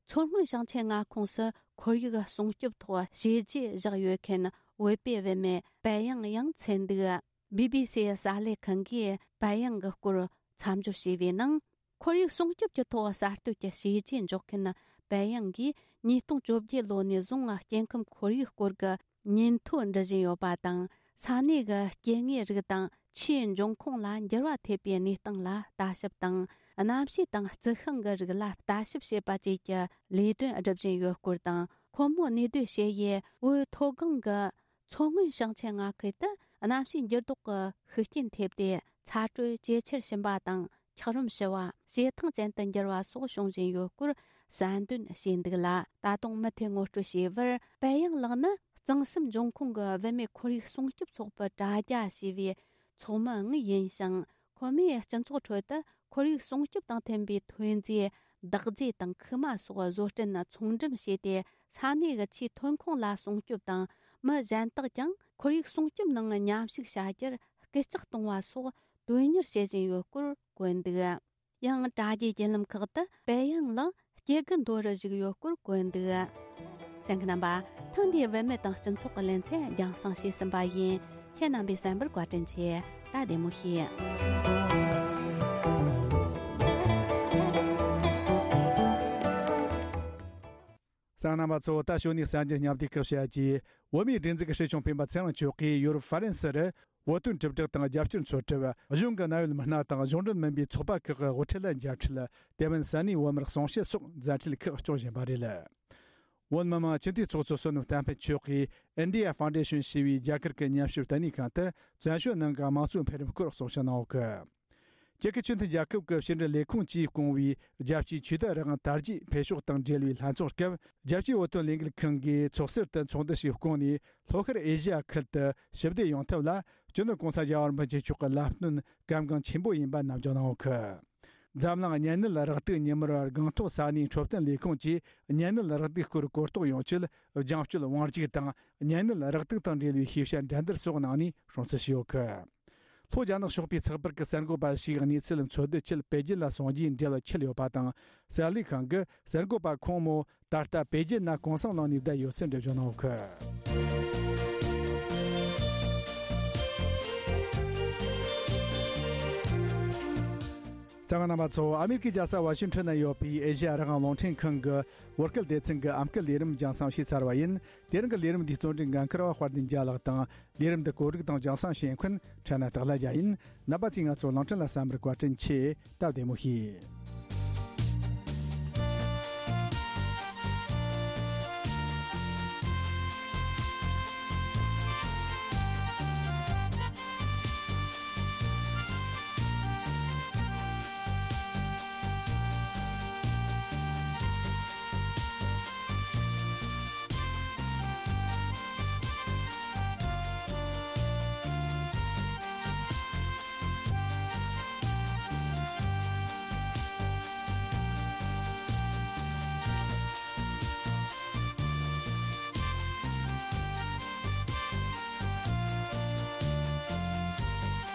མཚོ་སྔོན་ཞིང་ཆེན་མངའ་ཁོངས་སུ་ཁོར་ཡུག་སྲུང་སྐྱོབ་ཐོག་བྱས་རྗེས་བཞག་ཡོད་མཁན་བོད་པའི་བུད་མེད་པད་ཡང་ཡང་མཚོན་འདུག་བི་བི་སི་གསར་ལས་ཁང་གིས་པད་ཡང་གི་སྐོར་མཚམས་སྦྱོར་བྱས་པའི་ནང་། ཁོར་ཡུག་སྲུང་སྐྱོབ་ཀྱི་ཐོག་གསར་གཏོད་ཀྱི་བྱས་རྗེས་འཇོག་མཁན་པད་ཡང་གིས་ཉིས་སྟོང་བཅོ་བརྒྱད་ལོ་ནས་བཟུང་སྐྱེ་ཁམས་ཁོར་ཡུག་སྐོར་གྱི་ཉིན་ཐོ་འབྲི་བཞིན་ཡོད་པ་དང་། ས་གནས་ཀྱི་སྐྱེ་དངོས་རིགས་དང་ཆུའི་འབྱུང་ཁུངས་ལ་འགྱུར་བ་ཐེབས་པའི་གནས་སྟངས་ལ་ལྟ་ཞིབ་དང་། གནམ་གཤིས་དང་རྩི་ཤིང་གི་རིགས་ལ་ལྟ་ཞིབ་བྱེད་པ་བཅས་ཀྱི་ལས་དོན་སྒྲུབ་བཞིན་ཡོད་སྐོར་དང་། ཁོ་མོ་གནས་སྡོད་བྱེད་ཡུལ་བོད་མཐོ་སྒང་གི་མཚོ་སྔོན་ཞིང་ཆེན་མངའ་ཁུལ་དུ་གནམ་གཤིས་འགྱུར་ལྡོག་གི་ཤུགས་རྐྱེན་ཐེབས་ཏེ། ཚ་དྲོད་ཇེ་ཆེར་ཕྱིན་པ་དང་། འཁྱགས་རོམ་ཞུ་བ། བྱེ་ཐང་ཅན་དུ་འགྱུར་བ་སོགས་བྱུང་བཞིན་ཡོད་སྐོར་གསལ་འདོན་བྱས་འདུག་ལ། ད་དུང་མུ་མཐུད་ངོ་སྤྲོད་བྱས་པར། པད་ཡང་ལགས་ནི་གཙང་གསུམ་འབྱུང་ཁུངས་ཀྱི་བུད་མེད་ཁོར་ཡུག་སྲུང་སྐྱོབ་ཚོགས་པའི་དྲ་རྒྱ་ཞེས་པའི་ཚོགས་མི་ཡང་ཡིན་ཞིང་། ཁོ་མོས་སྤྱི་ཚོགས་ཁྲོད་དུ་ཁོར་ཡུག་སྲུང་སྐྱོབ་དང་མཐུན་པའི་ཐོན་རྫས་འདག་རྫས་དང་ཁུག་མ་སོགས་བཟོ་སྐྲུན་ཚོང་འགྲེམས་བྱས་ཏེ། ས་གནས་ཀྱི་ཆུའི་ཐོན་ཁུངས་ལ་སྲུང་སྐྱོབ་དང་། མི་གཞན་དག་ཀྱང་ཁོར་ཡུག་སྲུང་སྐྱོབ་ནང་མཉམ་ཞུགས་བྱ་རྒྱུར་སྐུལ་ལྕག་གཏོང་བ་སོགས་དོན་གཉེར་བྱེད་བཞིན་ཡོད་སྐོར་བཀོད་འདུག་ཡང་དྲ་རྒྱའི་བརྒྱུད་ལམ་ཁག་ཏུ་པད་ཡང་ལགས་སྐྱེ་རྒུ་མདོ་རུ་བཞུགས་ཡོད་སྐོར་བཀོད་འདུག་གསན་མཁན་རྣམ་པ། ཐེངས་འདིའི་བུད་མེད་དང་སྤྱི་ཚོགས་ཀྱི་ལེ་ཚན་རྒྱང་སྲིང་བྱས་ཟིན་པ་ཡིན། ཁྱེད་རྣམ་པས་གསན་པར་བཀའ་དྲིན་ཆེ། ད་བདེ་མོ་བྱོས། གསན་མཁན་རྣམ་པ་ཚོ། ད་ཞོ་ནི་གསར་འགྱུར་སྙན་ཐོ་ཁག་བཤད་རྒྱུ། བོད་མིའི་སྒྲིག་འཛུགས་ཀྱི་སྲིད་སྐྱོང་སྤེན་པ་ཚེ་རིང་མཆོག་གིས་ཡོ་རོབ་ཧྥ་རན་སི་རུ། བོད་དོན་དྲིལ་བསྒྲགས་དང་རྒྱབ་སྐྱོར་འཚོལ་ཐབས། གཞུང་གི་གནད་ཡོད་མི་སྣ་དང་གཞུང་འབྲེལ་མིན་པའི་ཚོགས་པ་ཁག་གི་དབུ་ཁྲིད་ལ་མཇལ་འཕྲད། དེ་མིན་ས་གནས་བོད་མིར་གསུང་བཤད་སོགས་མཛད་འཕྲིན་ཁག་སྐྱོང་བཞིན་པ་རེད། བོད་མི་མང་སྤྱི་འཐུས་ཚོགས་གཙོ་བསོད་ནམས་བསྟན་འཕེལ་མཆོག་གིས་India Foundation ཞེས་པའི་རྒྱ་གར་གྱི་ཉམས་ཞིབ་ལྟེ་གནས་ཁང་དུ་བཙན་བྱོལ་ནང་གི་དམངས་གཙོའི་འཕེལ་རིམ་སྐོར་གསུང་བཤད་གནང་བ་གི། རྒྱལ་ཁབ་ཆེས་མཐོའི་རྒྱལ་ཁབ་ཀྱི་ཕྱི་འབྲེལ་ལས་ཁུངས་ཀྱིས་བསྐོང་བའི་རྒྱལ་སྤྱིའི་ཆོས་དད་རང་དར་རྒྱས་འཕེལ་ཕྱོགས་དང་འབྲེལ་བའི་ལྷན་ཚོགས་སྐབས། རྒྱལ་སྤྱིའི་བོད་དོན་ལས་འགུལ་ཁང་གིས་ཚོགས་ཟུར་དུ་ཚོགས་འདུ་ཞིག་བསྐོངས་ནས། ལྷོ་ཤར་ཨེ་ཤི་ཡ་ཁུལ་དུ་ཞི་བདེ་ཡོང་ཐབས་ལ་སྤྱི་ནོར་༸གོང་ས་༸རྒྱལ་བ་རིན་པོ་ཆེ་མཆོག་གི་བསླབ་སྟོན་གལ་འགངས་ཆེན་པོ་ཡིན་པ་ནམ་རྒྱུན་གནང་ཡོད་གི། འཛམ་གླིང་གཉན་ནད་རེག་དུག་ཉིན་མོར་སྒང་ཐོག་ས་གནས་འཕྲོད་བསྟེན་ལས་ཁུངས་ཀྱིས་གཉན་ནད་རེག་དུག་སྐོར་གོ་རྟོགས་ཡོང་ཆེད། རྒྱང་སྐྱོད་དབང་སྒྱུར་དང་གཉན་ནད་རེག་དུག་དང་འབྲེལ་བའི་ཤེས་བྱ་འགྲན་བསྡུར་སོགས་གནང་ནས་སྲུང་བརྩི་ཞུས་ཡོད་གི། ལྷོ་རྒྱ་ནག་ཕྱོགས་པའི་ཚགས་པར་གྱི་གསར་འགོད་པ་ཞིག་གནས་ཚུལ་འཚོལ་བསྡུ་ཆེད་པེ་ཅིན་ལ་སོང་རྗེས་འབྲེལ་བ་འཆད་ཡོད་པ་དང་། གསར་ལས་ཁང་གི་གསར་འགོད་པ་ཁོང་མོ་ད་ལྟ་པེ་ཅིན་ན་གུང་སེང་གནང་ནས་བསྡད་ཡོད་ཚུལ་འགྲེལ་བརྗོད་གནང་ཡོད་གི། གསན་མཁན་རྣམ་པ་ཚོ། ཨ་མེ་རི་ཀའི་རྒྱལ་ས་ཝ་ཤིང་ཊོན་ན་ཡོད་པའི་ཨེ་ཤེ་ཡ་རང་དབང་རླུང་འཕྲིན་ཁང་གི་བོད་སྐད་སྡེ་ཚན་གྱི་ཨམ་སྐད་ལས་རིམ་རྒྱང་སྲིང་བྱས་ཚར་བ་ཡིན། དེ་རིང་གི་ལས་རིམ་འདིའི་གཙོ་འབྲེལ་འགན་འཁུར་བ་དཔལ་ལྡན་རྒྱལ་ལགས་དང་། ལས་རིམ་འདི་གོ་སྒྲིག་དང་རྒྱང་སྲིང་བྱེད་མཁན་ཁྲ་ན་སྟག་ལྷ་རྒྱལ་ཡིན། རྣམ་པ་ཚོས་ང་ཚོ་གླིང་ཕྲན་ལ་གསན་པར་བཀའ་དྲིན་ཆེ། སྟབས་བདེ་མོ་བྱོས།